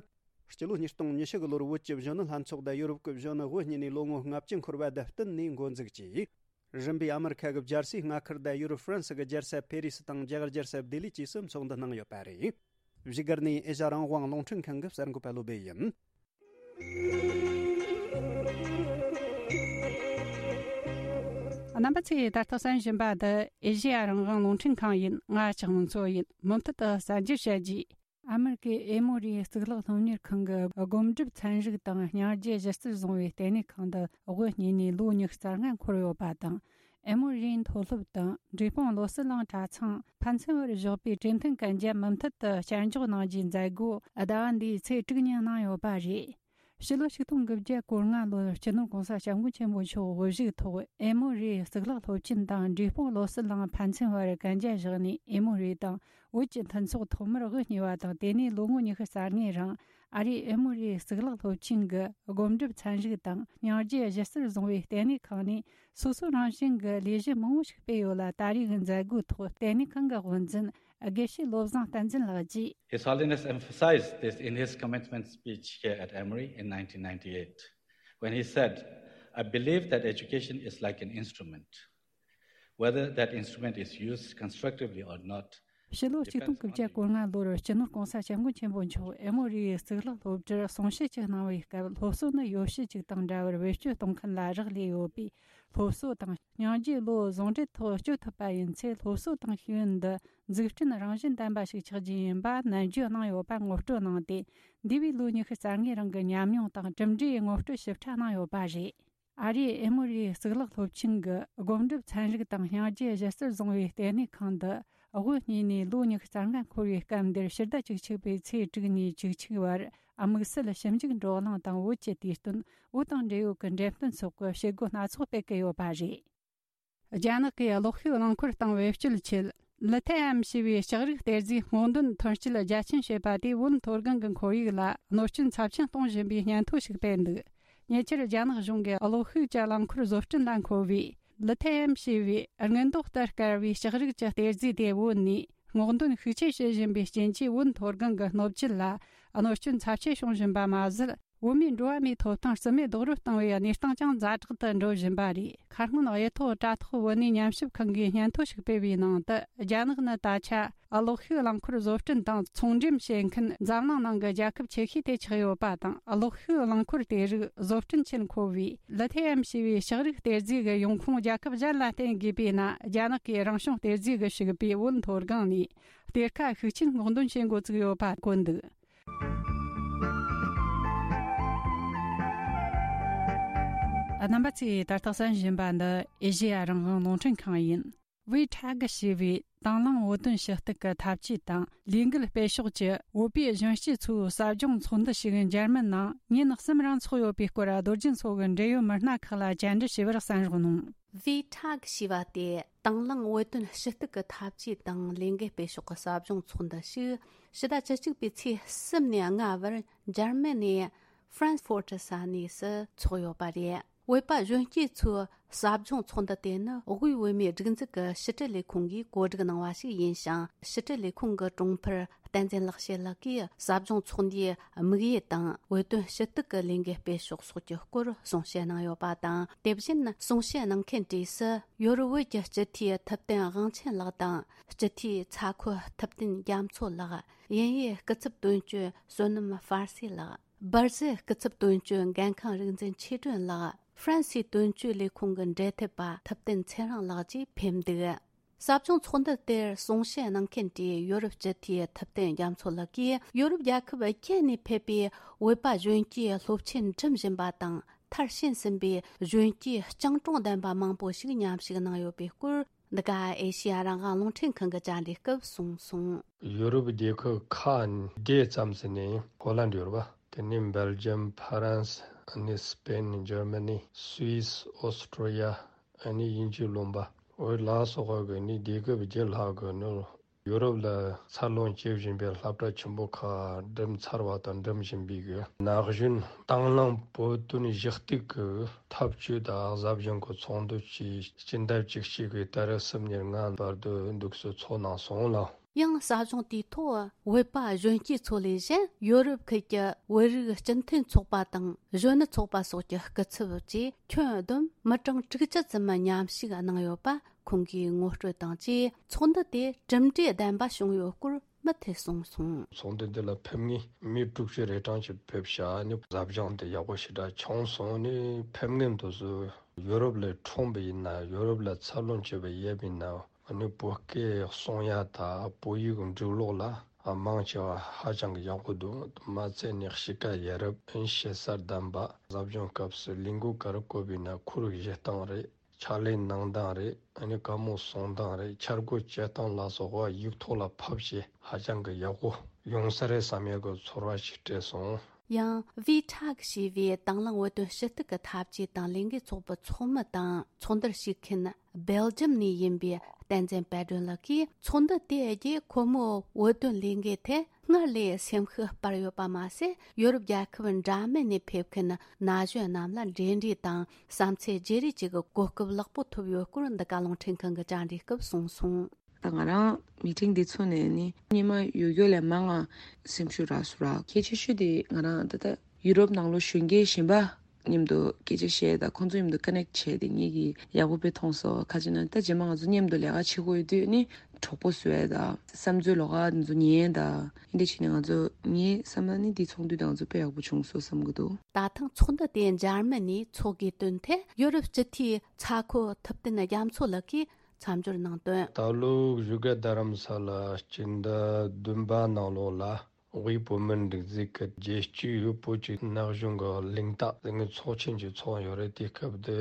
སྤྱི་ལོ་ཉིས་སྟོང་ཉི་ཤུ་གི་ལོར་བོད་ཀྱི་གཞོན་ནུ་ལྷན་ཚོགས་དང་ཡོ་རོབ་ཀྱི་གཞོན་ནུ་དབུ་བརྙེས་ནས་ལོ་ངོ་ལྔ་བཅུ་འཁོར་བ་དང་བསྟུན་ནས་འགོ་འཛུགས་ཀྱིས། རིམ་པས་ཨ་མི་རི་ཁ་གི་རྒྱལ་སའི་མངའ་ཁུལ་དང་ཡུ་རོབ་ཧྥ་རན་སི་གི་རྒྱལ་ས་ཕེ་རི་སི་དང་རྒྱ་གར་རྒྱལ་ས་ལྡི་ལི་བཅས་སུ་ཚོགས་འདུ་གནང་ཡོད་པ་རེད། བཞུགས་སྒར་ནས་ཨེ་ཤ་རང་དབང་རླུང་འཕྲིན་ཁང་གི་གསར་འགོད་པ་བློ་སྦེ་ཡིན། རྣམ་པ་ཚོས་ད་ལྟ་གསན་བཞིན་པ་འདི་ཨེ་ཤེ་ཡ་རང་དབང་རླུང་འཕྲིན་ཁང་ཡིན། ང་ལྕགས་མོ་མཚོ་ཡིན། མུ་མཐུད་དུ་གསར་འགྱུར་བཤད་རྒྱུ། ཨ་མེ་རི་ཀའི་ཨེ་མོ་རི་གཙུག་ལག་སློབ་གཉེར་ཁང་གི་སྒོམ་སྒྲུབ་ཚན་རིག་དང་སྙིང་རྗེ་གཞི་རྩར་བཟུང་བའི་ལྟེ་གནས་ཁང་དུ་དབུ་བརྙེས་ནས་ལོ་ཉི་ཤུ་རྩ་ལྔ་འཁོར་ཡོད་པ་དང་། ཨེ་མོ་རིའི་མཐོ་སློབ་དང་འབྲས་སྤུངས་བློ་གསལ་གླིང་གྲྭ་ཚང་ཕན་ཚུན་བར་བཞག་པའི་གྲོས་མཐུན་གན་རྒྱ་མུ་མཐུད་དུ་བསྐྱར་འཇོག་གནང་རྒྱུའི་མཛད་སྒོ་ཟླ་བ་འདིའི་ཚེས་དྲུག་ཉིན་གནང་ཡོད་པ་རེད། ཕྱི་ལོ་ཆིག་སྟོང་དགུ་བརྒྱ་གོ་ལྔ་ལོར་སྤྱི་ནོར་༸གོང་ས་༸སྐྱབས་མགོན་ཆེན་པོ་མཆོག་དབུ་བཞུགས་ཐོག་ཨེ་མོ་རི་གཙུག་ལག་སློབ་ཆེན་དང་འབྲས་སྤུངས་བློ་གསལ་གླིང་ཕན་ཚུན་བར་གན་རྒྱ་བཞག་ནས། ཨེ་མོ་རི་དང་བོད་ཀྱི་མཐུན་ཚོགས་ཐོག་མར་དབུ་བརྙེས་པ་དང་། དེ་ནས་ལོ་ངོ་ཉི་ཤུ་རྩ་ལྔའི་རིང་ཨ་རིའི་ཨེ་མོ་རི་གཙུག་ལག་སློབ་ཆེན་གྱི་སྒོམ་སྒྲུབ་ཚན་རིག་དང་སྙིང་རྗེ་གཞི་རྩར་བཟུང་བའི་ལྟེ་གནས་ཁང་ནས་སོ་སོ་རང་བཞིན་གྱི་ལས་གཞི་མང་བོ་ཞིག་སྤེལ་ཡོད་ལ། ད་རེས་ཀྱི་མཛད་སྒོའི་ཐོག་ལྟེ་གནས་ཁང་གི་དབུ་འཛིན་དགེ་བཤེས་བློ་བཟང་བསྟན་འཛིན་ལགས་ཀྱིས། His Holiness emphasized this in his commencement speech here at Emory in nineteen ninety-eight, when he said, "I believe that education is like an instrument. Whether that instrument is used constructively or not ཕྱི་ལོ་གཅིག་སྟོང་དགུ་བརྒྱ་གོ་ལྔ་ལོར་སྤྱི་ནོར་༸གོང་ས་༸སྐྱབས་མགོན་ཆེན་པོ་མཆོག་ཨེ་མོ་རི་ཡི་གཙུག་ལག་སློབ་གྲྭར་གསུང་བཤད་ཅིག་གནང་བའི་སྐབས། སློབ་གསོ་ནི་ཡོ་བྱད་ཅིག་དང་འདྲ་བར་བེད་སྤྱོད་གཏོང་མཁན་ལ་རག་ལས་ཡོད་པས། སློབ་གསོ་དང་སྙིང་རྗེ་བློ་ཟུང་འབྲེལ་ཐོག་སྤྱོད་ཐུབ་པ་ཡིན་ཚེ། སློབ་གསོ་དང་ཤེས་ཡོན་འདི་འཛུགས་སྐྲུན་རང་བཞིན་ལྡན་པ་ཞིག་ཆགས་རྒྱུ་ཡིན་པ་ནན་བརྗོད་གནང་ཡོད་པ་ངོ་སྤྲོད་གནང་སྟེ། འདས་པའི་ལོ་ཉི་ཤུ་རྩ་ལྔའི་རིང་གི་ཉམས་མྱོང་དང་གྲུབ་འབྲས་ངོ་སྤྲོད་ཞིབ་ཕྲ་གནང་ཡོད་པ་རེད། ཨ་རིའི་ཨེ་མོ་རིའི་གཙུག་ལག་སློབ་ཆེན་གྱི་སྒོམ་སྒྲུབ་ཚན་རིག་དང་སྙིང་རྗེ་གཞི་རྩར་བཟུང་བའི་ལྟེ་གནས་ཁང་འདི་དབུ་བརྙེས་ནས་ལོ་ཉི་ཤུ་རྩ་ལྔ་འཁོར་བའི་སྐབས་འདིར། ཕྱི་ཟླ་བཅུ་གཅིག་པའི་ཚེས་དྲུག་ནས་བཅུ་གཅིག་བར་དམིགས་བསལ་ཞིབ་འཇུག་བགྲོ་གླེང་དང་། བོད་ཀྱི་དུས་སྟོན། བོད་དང་འབྲེལ་ཡོད་ཀྱི་འགྲེམས་སྟོན་སོགས་ཀྱི་བྱེད་སྒོ་སྣ་ཚོགས་སྤེལ་གྱི་ཡོད་པ་རེད། རྒྱ་ནག་གིས་གློག་ཤུགས་རླངས་འཁོར་སྟེང་བེད་སྤྱོད་ཆེད་ལི་ཐེ་ཨེམ་ཞེས་པའི་ལྕགས་རིགས་གཏེར་རྫས་སྔོག་འདོན་ཐོན་སྐྱེད་རྒྱ་ཁྱོན་བྱེད་པ་དེ་བོད་མཐོ་སྒང་གི་ཁོར་ཡུག་ལ་གནོད་སྐྱོན་ཚབས་ཆེན་གཏོང་བཞིན་པའི་སྙན་ཐོ་ཞིག་སྤེལ་འདུག་ཉེ་ཆར་རྒྱ་ནག་གཞུང་གིས་གློག་ཤུགས་ཀྱི་རླངས་འཁོར་བཟོ་སྐྲུན་ལ་མཁོ་བའི་ལི་ཐེ་ཨེམ་ཞེས་པའི་དངུལ་མདོག་ལྟར་དཀར་བའི་ལྕགས་རིགས་ཀྱི་གཏེར་རྫས་དེ་བོད་ནས་སྔོག་འདོན་ཤུགས་ཆེ་བྱེད་བཞིན་པའི་རྐྱེན་གྱིས། བོད་མཐོ་སྒང་གི་སྣོད་བཅུད་ལ་གནོད་སྐྱོན་ཚབས་ཆེ་བྱུང་བཞིན་པ་མ་ཟད། བོད་མིའི་འགྲོ་བ་མིའི་ཐོབ་ཐང་རྩིས་མེད་རྡོག་རོལ་བཏང་བའི་གནས་སྟངས་ཀྱང་ཛ་དྲག་ཏུ་འགྲོ་བཞིན་པ་རེད། ཁ་སྔོན་གཡུ་ཐོག་དྲ་ཐོག་བོད་གནས་ཉམས་ཞིབ་ཁང་གིས་སྙན་ཐོ་ཞིག་སྤེལ་བའི་ནང་དུ། རྒྱ་ནག་ནི་ད་ཆ་གློག་ཤུགས་རླངས་འཁོར་བཟོ་སྐྲུན་དང་ཚོང་འགྲེམས་བྱེད་མཁན་འཛམ་གླིང་ནང་གི་རྒྱལ་ཁབ་ཆེ་ཤོས་དེ་ཆགས་ཡོད་པ་དང་། གློག་ཤུགས་རླངས་འཁོར་དེ་རིགས་བཟོ་སྐྲུན་ཆེད་མཁོ་བའི་ལི་ཐི་ཡམ་ཞེས་པའི་ལྕགས་རིགས་གཏེར་རྫས་ཀྱི་ཡོང་ཁུངས་རྒྱལ་ཁབ་གཞན་ལ་བརྟེན་དགོས་པས་ན། རྒྱ་ནག་གིས་རང་བྱུང་གཏེར་རྫས་ཀྱི་ཕྱུག་པའི་བོད་མཐོ་སྒང་ནས་གཏེར་ཁ་ཤུགས་ཆེན་སྔོག་འདོན་བྱེད་འགོ་བཙུགས་ཡོད་པ་བཀོད་འདུག་རྣམ་པ་ཚོས་ད་ལྟ་གསན་བཞིན་པ་འདི་ཨེ་ཤེ་ཡ་རང་དབང་རླུང་འཕྲིན་ཁང་ཡིན། ཝི་ཁྲག་ཞེས་པའི་དང་བླངས་བོད་དོན་ཞུ་གཏུག་གི་འཐབ་ཇུས་དང་ལས་འགུལ་སྤེལ་ཕྱོགས་ཀྱི་བོད་པའི་གཞོན་སྐྱེས་ཚོའི་ཟབ་སྦྱོང་ཚོགས་འདུ་ཞིག་འཇར་མན་ནང་ཉིན་གསུམ་རིང་འཚོགས་ཡོད་པའི་སྐོར། རྡོ་རྗེ་མཚོ་གི་འབྲེལ་ཡོད་མི་སྣ་ཁག་ལ་བཅར་འདྲི་ཞུས་པར་གསན་རོགས་གནང་། ཝི་ཁྲག་ཞེས་པ་དེ་དང་བླངས་བོད་དོན་ཞུ་གཏུག་གི་འཐབ་ཇུས་དང་ལས་འགུལ་སྤེལ་ཕྱོགས་ཀྱི་ཟབ་སྦྱོང་ཚོགས་འདུ་ཞིག་ཕྱི་ཟླ་བཅུ་གཅིག་པའི་ཚེས་གསུམ་ནས་ལྔ་བར་འཇར་མན་ནས་ཧྥ་རན་སི་ཕོར་ཊི་ས་གནས་སུ་འཚོགས་ཡོད་པ་རེད། བོད་པ་གཞོན་སྐྱེས་ཚོའི་ཟབ་སྦྱོང་ཚོགས་འདུ་དེ་ནི་དབུས་བོད་མིའི་སྒྲིག་འཛུགས་ཀྱི་ཕྱི་དྲིལ་ལས་ཁུངས་ཀྱིས་གོ་སྒྲིག་གནང་བ་ཞིག་ཡིན་ཞིང་། ཕྱི་དྲིལ་ལས་ཁུངས་ཀྱི་དྲུང་འཕར་བསྟན་འཛིན་ལེགས་བཤད་ལགས་ཀྱིས་ཟབ་སྦྱོང་ཚོགས་འདུའི་དམིགས་ཡུལ་དང་བོད་དོན་ཞུ་གཏུག་གི་ལས་འགུལ་སྤེལ་ཕྱོགས་སོགས་ཀྱི་སྐོར་གསུང་བཤད་གནང་ཡོད་པ་དང་། དེ་བཞིན་གསུང་བཤད་གནང་མཁན་གྲས་སུ་ཡོ་རོབ་བོད་ཀྱི་སྤྱི་འཐུས་ཐུབ་བསྟན་དབང་ཆེན་ལགས་དང་། སྤྱི་འཐུས་ཚ་ཁོ་ཐུབ་བསྟན་རྒྱ་མཚོ་ལགས། དབྱིན་ཡུལ་སྐུ་ཚབ་དོན་གཅོད་བསོད་ནམས་ཧྥ་སེ་ལགས། སྦར་ཟིལ་སྐུ་ཚབ་དོན་གཅོད་འགན་ཁང་རིག་འཛིན་ཆོས་སྒྲོན་ལགས། ཧྥ་རན་སིའི་དོན་གཅོད་ལས་ཁུངས་ཀྱི་འབྲེལ་མཐུད་པ་ཐུབ་བསྟན་ཚེ་རིང་ལགས་བཅས་ཕེབས་འདུག། ཟབ་སྦྱོང་ཚོགས་འདུ་དེར་གསུང་བཤད་གནང་མཁན་གྱི་ཡོ་རོབ་སྤྱི་འཐུས་ཐུབ་བསྟན་རྒྱ་མཚོ་ལགས་ཀྱིས། ཡོ་རོབ་རྒྱལ་ཁབ་བརྒྱད་ནས་ཕེབས་པའི་བོད་པ་གཞོན་སྐྱེས་སློབ་ཆེན་འགྲིམ་བཞིན་པ་དང་། མཐར་ཕྱིན་ཟིན་པའི་གཞོན་སྐྱེས་སྤྱང་གྲུང་ལྡན་པ་མང་པོ་ཞིག་མཉམ་ཞུགས་གནང་ཡོད་པའི་སྐོར། འདི་ག་ཨེ་ཤེ་ཡ་རང་དབང་རླུང་འཕྲིན་ཁང་གིས་བཅར་འདྲིའི་སྐབས་གསུངས་སོང་། ཡོ་རོབ་རྒྱལ་ཁབ་ཁག་འདྲེས་ཙམ་ཟིན་ནས་ཧོ་ལན་ཡོད་རེད་པ། དེ་ནས་སྦེལ་ཇམ། ཧྥ་རན་སི། ཨ་ནི་སི་པེན། འཇར་མ་ནི། སུད་སི། ཨོ་སི་ཀྲོ་ཡ། ཨ་ནི་དབྱིན་ཇིའི་ལུང་པ། འོ་ལ་སོགས་ཀྱི་ནི་རྒྱལ་ཁབ་བརྒྱད་ལྷག་གི་ནི་ཡོ་རོབ་ལ་འཚར་ལོངས་བྱེད་བཞིན་པའི་སློབ་གྲྭ་ཆེན་པོ་ཁག་འགྲིམ་ཚར་བ་དང་འགྲིམ་བཞིན་པའི་གི་ན་གཞོན་དང་བླངས་བོད་དོན་ཞུ་གཏུག་གི་འཐབ་ཇུས་དང་ཟབ་སྦྱོང་གི་ཚོགས་འདུ་བཅས་སྤྱི་ཟླ་བཅུ་གཅིག་གི་ཏ་རིག་གསུམ་ཉེར་ལྔ་བར་དུ་འདུག་སེ་འཚོགས་གནང་སོང་ལ། ཡང་ཟབ་སྦྱོང་དེའི་ཐོག་བོད་པ་གཞོན་སྐྱེས་ཚོ་ལས་གཞན་ཡོ་རོབ་ཁུལ་གྱི་བོད་རིགས་སྤྱི་མཐུན་ཚོགས་པ་དང་གཞོན་ནུ་ཚོགས་པ་སོགས་ཀྱི་སྐུ་ཚབ་བཅས་ཁྱོན་བསྡོམས་མི་གྲངས་དྲུག་ཅུ་ཙམ་མཉམ་ཞུགས་གནང་ཡོད་པ་ཁོང་གིས་ངོ་སྤྲོད་དང་བཅས། ཚོགས་འདུ་དེ་གྲུབ་འབྲས་ལྡན་པ་བྱུང་ཡོད་སྐོར་མུ་མཐུད་གསུངས་སོང་། ཚོགས་འདུ་འདི་ལ་ཕེབས་མཁན་མི་དྲུག་ཅུ་རེ་གྲངས་ཅིག་ཕེབས་ཤག་ནི་ཟབ་སྦྱོང་དེ་ཡག་པོ་ཞེ་དྲག་བྱུང་སོང་། ནི་ཕེབས་མཁན་དེ་ཚོ་ཡོ་རོབ་ལ་འཁྲུངས་པ་ཡིན་ན། ཡོ་རོབ་ལ་འཚར་ལོངས་བྱས་པ་ཡིན་ན། ཨ་ནི་བོད་སྐད་གསུང་ཡ་དང་བོད་ཡིག་འབྲི་ཀློག་ལ་མང་ཆེ་བ་ཧ་ཅང་གི་ཡག་པོ་འདུག། མ་ཚད་ནི་གཤིས་ཀ་ཡ་རབས། ཨ་ནི་ཞེ་ས་ལྡན་པ། ཟབ་སྦྱོང་སྐབས་སུ་ལས་འགུལ་ག་རེ་བཀོད་པ་ཡིན་ན་ཁོར་ཡུག་བཞེངས་སྟངས་རེད། ཕྱག་ལས་གནང་སྟངས་རེད། ཨ་ནི་བཀའ་མོལ་གསུང་སྟངས་རེད། འཆར་འགོད་བྱེད་སྟངས་ལ་སོགས་པ་ཡིག་ཐོག་ལ་ཕབ་བྱས་ཧ་ཅང་གི་ཡག་པོ་ཡོང་ས་རེད་བསམ་ཡག་གི་ཚོར་བ་ཞིག་སྤྲད་སོང་། ཡང་ཝི་ཁྲག་ཞེས་པའི་དང་བླངས་བོད་དོན་ཞུ་གཏུག་གི་འཐབ་ཇུས་དང་ལས་འགུལ་ཚོགས་པའི་ཚོགས་མི་དང་ཚོགས་འདུར་ཞུགས་མཁན་སྦེལ་ཇམ་ནས་ཡིན་པའི་བསྟན་འཛིན་དཔལ་སྒྲོན་ལགས་ཀྱིས། ཚོགས་འདུ་དེ་བརྒྱུད་ཁོ་མོའི་བོད་དོན་ལས་འགུལ་ཐད་སྔར་ལས་སེམས་ཤུགས་སྤར་ཡོད་པ་མ་ཟད། ཡོ་རོབ་རྒྱལ་ཁབ་འདྲ་མིན་ནས་ཕེབས་མཁན་ན་གཞོན་རྣམས་ལ་འབྲེལ་འདྲིས་དང་བསམ་ཚུལ་བརྗེ་རེས་བཅས་ཀྱི་གོ་སྐབས་ལེགས་པོ་ཐོབ་ཡོད་སྐོར་འདི་ག་རླུང་འཕྲིན་ཁང་གིས་བཅར་འདྲིའི་སྐབས་གསུངས་སོང་། ད་ང་རང་མི་ཊིང་འདི་ཚོགས་ནས་ནི་སྔོན་མ་ཡོད་རྒྱུ་ལས་མང་ང་སེམས་ཤུགས་རག་སོང་ར། གལ་ཆེ་ཤོས་དེ་ང་རང་ད་ལྟ་ཡུ་རོབ་ནང་ལོགས་གཞོན་སྐྱེས་གཞན་པ་མཉམ་དུ་སྐད་ཆ་བཤད་དང་ཁོང་ཚོ་མཉམ་དུ་ཀ་ནེག་བྱས་ཏེ་ངེད་ཀྱིས་ཡག་པོ་དཔེ་མཐོང་སོང་། ག་ཅི་ན་ད་རྗེས་མ་ང་ཚོ་མཉམ་དུ་ལས་ཀ་བྱེད་དགོས་ཡོད་དུས་ནི་གྲོགས་པོ་བཟོ་ཡ་དང་བསམ་ཚུལ་ལོགས་ཀ་འདི་ཚོ་ཉན་ཡ་དང་འདི་འདྲ་བྱས་ནས་ང་ཚོ་ངའི་བསམ་པ་ནི་འདི་ཚོགས་འདུ་དེ་ང་ཚོ་དཔེ་ཡག་པོ་བྱུང་སོང་བསམ་གྱི་འདུག། ད་ཐེངས་ཚོགས་འདུ་དེ་འཇར་མན་ནས་འཚོགས་དགོས་དོན་ཐད་ཡོ་རོབ་སྤྱི་འཐུས་ཚ་ཁོ་ཐུབ་བསྟན་རྒྱ་མཚོ་ལགས་ཀྱིས་མཚམས་སྦྱོར་གནང་དོན། ད་ལོ་བཞུགས་སྒར་རྡ་རམ་ས་ལ་སྤྱི་ཟླ་བདུན་པ་ནང་ལོགས་ལ་དབུས་བོད་མིའི་སྒྲིག་འཛུགས་ཀྱི་རྒྱལ་སྤྱིའི་བོད་ཀྱི་ན་གཞོན་གྱི་གླེང་སྟེགས་ཟེར་མཁན་ཚོགས་ཆེན་ཅིག་ཚོགས་ཡོད་རེད། དེ་སྐབས་དེ་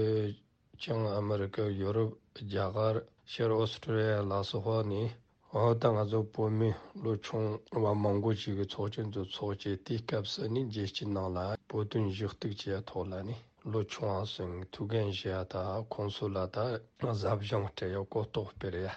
ཅང་ཨ་མི་རི་ཀ། ཡོ་རོབ། རྒྱ་གར། ཤར་ཨོ་སི་ཀྲོ་ལི་ཡ་ལ་སོགས་ནས། འོ་ད་ང་ཚོ་བོད་མི་ལོ་ཆུང་བ་མང་པོ་ཞིག་གི་ཚོགས་ཆེན་དུ་ཚོགས་བྱས། དེའི་སྐབས་སུ་ནི་རྒྱལ་སྤྱི་ནང་ལ་བོད་དོན་ཞུ་གཏུག་བྱེད་ཡ་ཐོག་ལ་ནི་ལོ་ཆུང་བ་ཚོས་ཐུགས་འགན་བཞེས་ཡ་དང་ཁོང་ཚོ་ལ་ད་ཟབ་སྦྱོང་སྤྲད་ཡ། གོ་རྟོགས་སྤེལ་ཡ།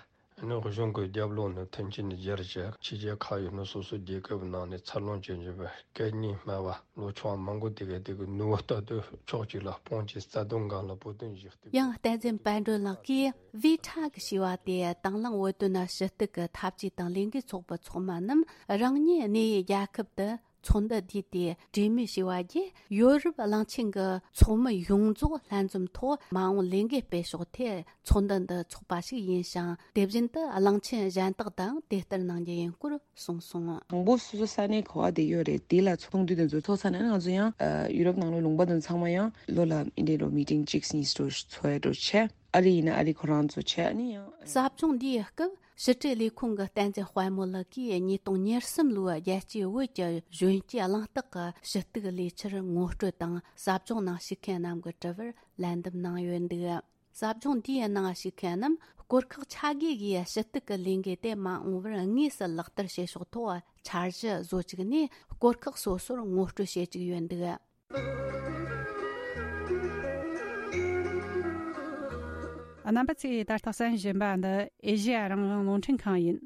ཨ་ནི་གཞུང་གི་རྒྱབ་ལོགས་ནས་མཐུན་རྐྱེན་སྦྱར་བྱས། ཕྱི་རྒྱལ་ཁག་ཡོད་ན་སོ་སོའི་རྒྱལ་ཁབ་ནང་ནས་འཚར་ལོངས་བྱེད་བཞིན་པའི་སྐད་གཉིས་སྨྲ་བ་ལོ་ཆུང་བ་མང་པོ་དེ་ག་དེ་གི་ནུ་བོ་ལྟ་དུས་ཕྱོགས་གཅིག་ལ་སྤུངས་བྱས་རྩ་དོན་སྒང་ལ་བོད་དོན་ཞུ། ཡང་བསྟན་འཛིན་དཔལ་སྒྲོན་ལགས་ཀྱིས་ཝི་ཁྲག་ཞེས་པ་དེ་དང་བླངས་བོད་དོན་ཞུ་གཏུག་གི་འཐབ་ཇུས་དང་ལས་འགུལ་ཚོགས་པའི་ཚོགས་མི་རྣམས་རང་ཉིད་གནས་ཡུལ་རྒྱལ་ཁབ་ཏུ་ ཚོགས་འདུ་འདིའི་དེ་གྲོས་མོལ་བྱས་པ་བརྒྱུད། ཡོ་རོབ་གླིང་ཆེན་གྱི་ཚོགས་མི་ཡོངས་རྫོགས་ལྷན་འཛོམས་ཐོག་མ་འོངས་ལས་འགུལ་སྤེལ་ཕྱོགས་ཐད་ཚོགས་འདུ་འདི་འཚོགས་པ་ཞིག་ཡིན་ཞིང་། དེ་བཞིན་དུ་གླིང་ཆེན་གཞན་དག་དང་དེ་ལྟར་གནང་རྒྱུ་ཡིན་སྐོར་གསུངས་སོང་། དང་པོ་སོ་སོ་ས་གནས་ག་པར་བསྡད་ཡོད་རེད། དེ་ལ་ཚོགས་འདུ་དེ་ཚོ་ཚོགས་ས་ནས་ང་ཚོ་ཡང་ཡུ་རོབ་ནང་ལོགས་ལུང་པ་དེ་ཚང་མ་ཡང་ལོ་ལ་ཨིན་དྲེ་རོ་མི་ཊིང་གཅིག་གཉིས་ཚོ་ཚོགས་ཡ་འགྲོ་བྱས། ཨ་རི་ཡིན་ན་ཨ་རི་ཁོ་རང་ཚོ་བྱས། ཨ་ནི་ཡང་། ཟབ་སྦྱོང་འདིའི་སྐབས་ཕྱི་དྲིལ་ལས་ཁུངས་ཀྱི་བསྟན་འཛིན་དཔལ་མོ་ལགས་ཀྱིས་ཉིས་སྟོང་ཉེར་གསུམ་ལོའི་རྒྱལ་སྤྱིའི་བོད་ཀྱི་གཞོན་སྐྱེས་གླེང་སྟེགས་ཀྱི་ཞུ་གཏུག་ལས་འཆར་ངོ་སྤྲོད་དང་། ཟབ་སྦྱོང་ནང་ཞུགས་མཁན་རྣམས་ཀྱི་དྲི་བར་ལན་འདེབས་གནང་ཡོད་འདུག། ཟབ་སྦྱོང་འདིའི་ནང་ཞུགས་མཁན་རྣམས་སྐོར་ཁག་ཆ་བགོས་ཀྱིས་ཞུ་གཏུག་གི་ལས་འགུལ་དེ་མ་འོངས་པར་དངོས་སུ་ལག་བསྟར་བྱེད་ཕྱོགས་ཐོག་འཆར་གཞི་བཟོ་བཅུག་ནས། སྐོར་ཁག་སོ་སོར་ངོ་སྤྲོད་བྱེད་བཅུག་ཡོད་འདུག། རྣམ་པ་ཚོས་ད་ལྟ་གསན་བཞིན་པ་འདི་ཨེ་ཤེ་ཡ་རང་དབང་རླུང་འཕྲིན་ཁང་ཡིན།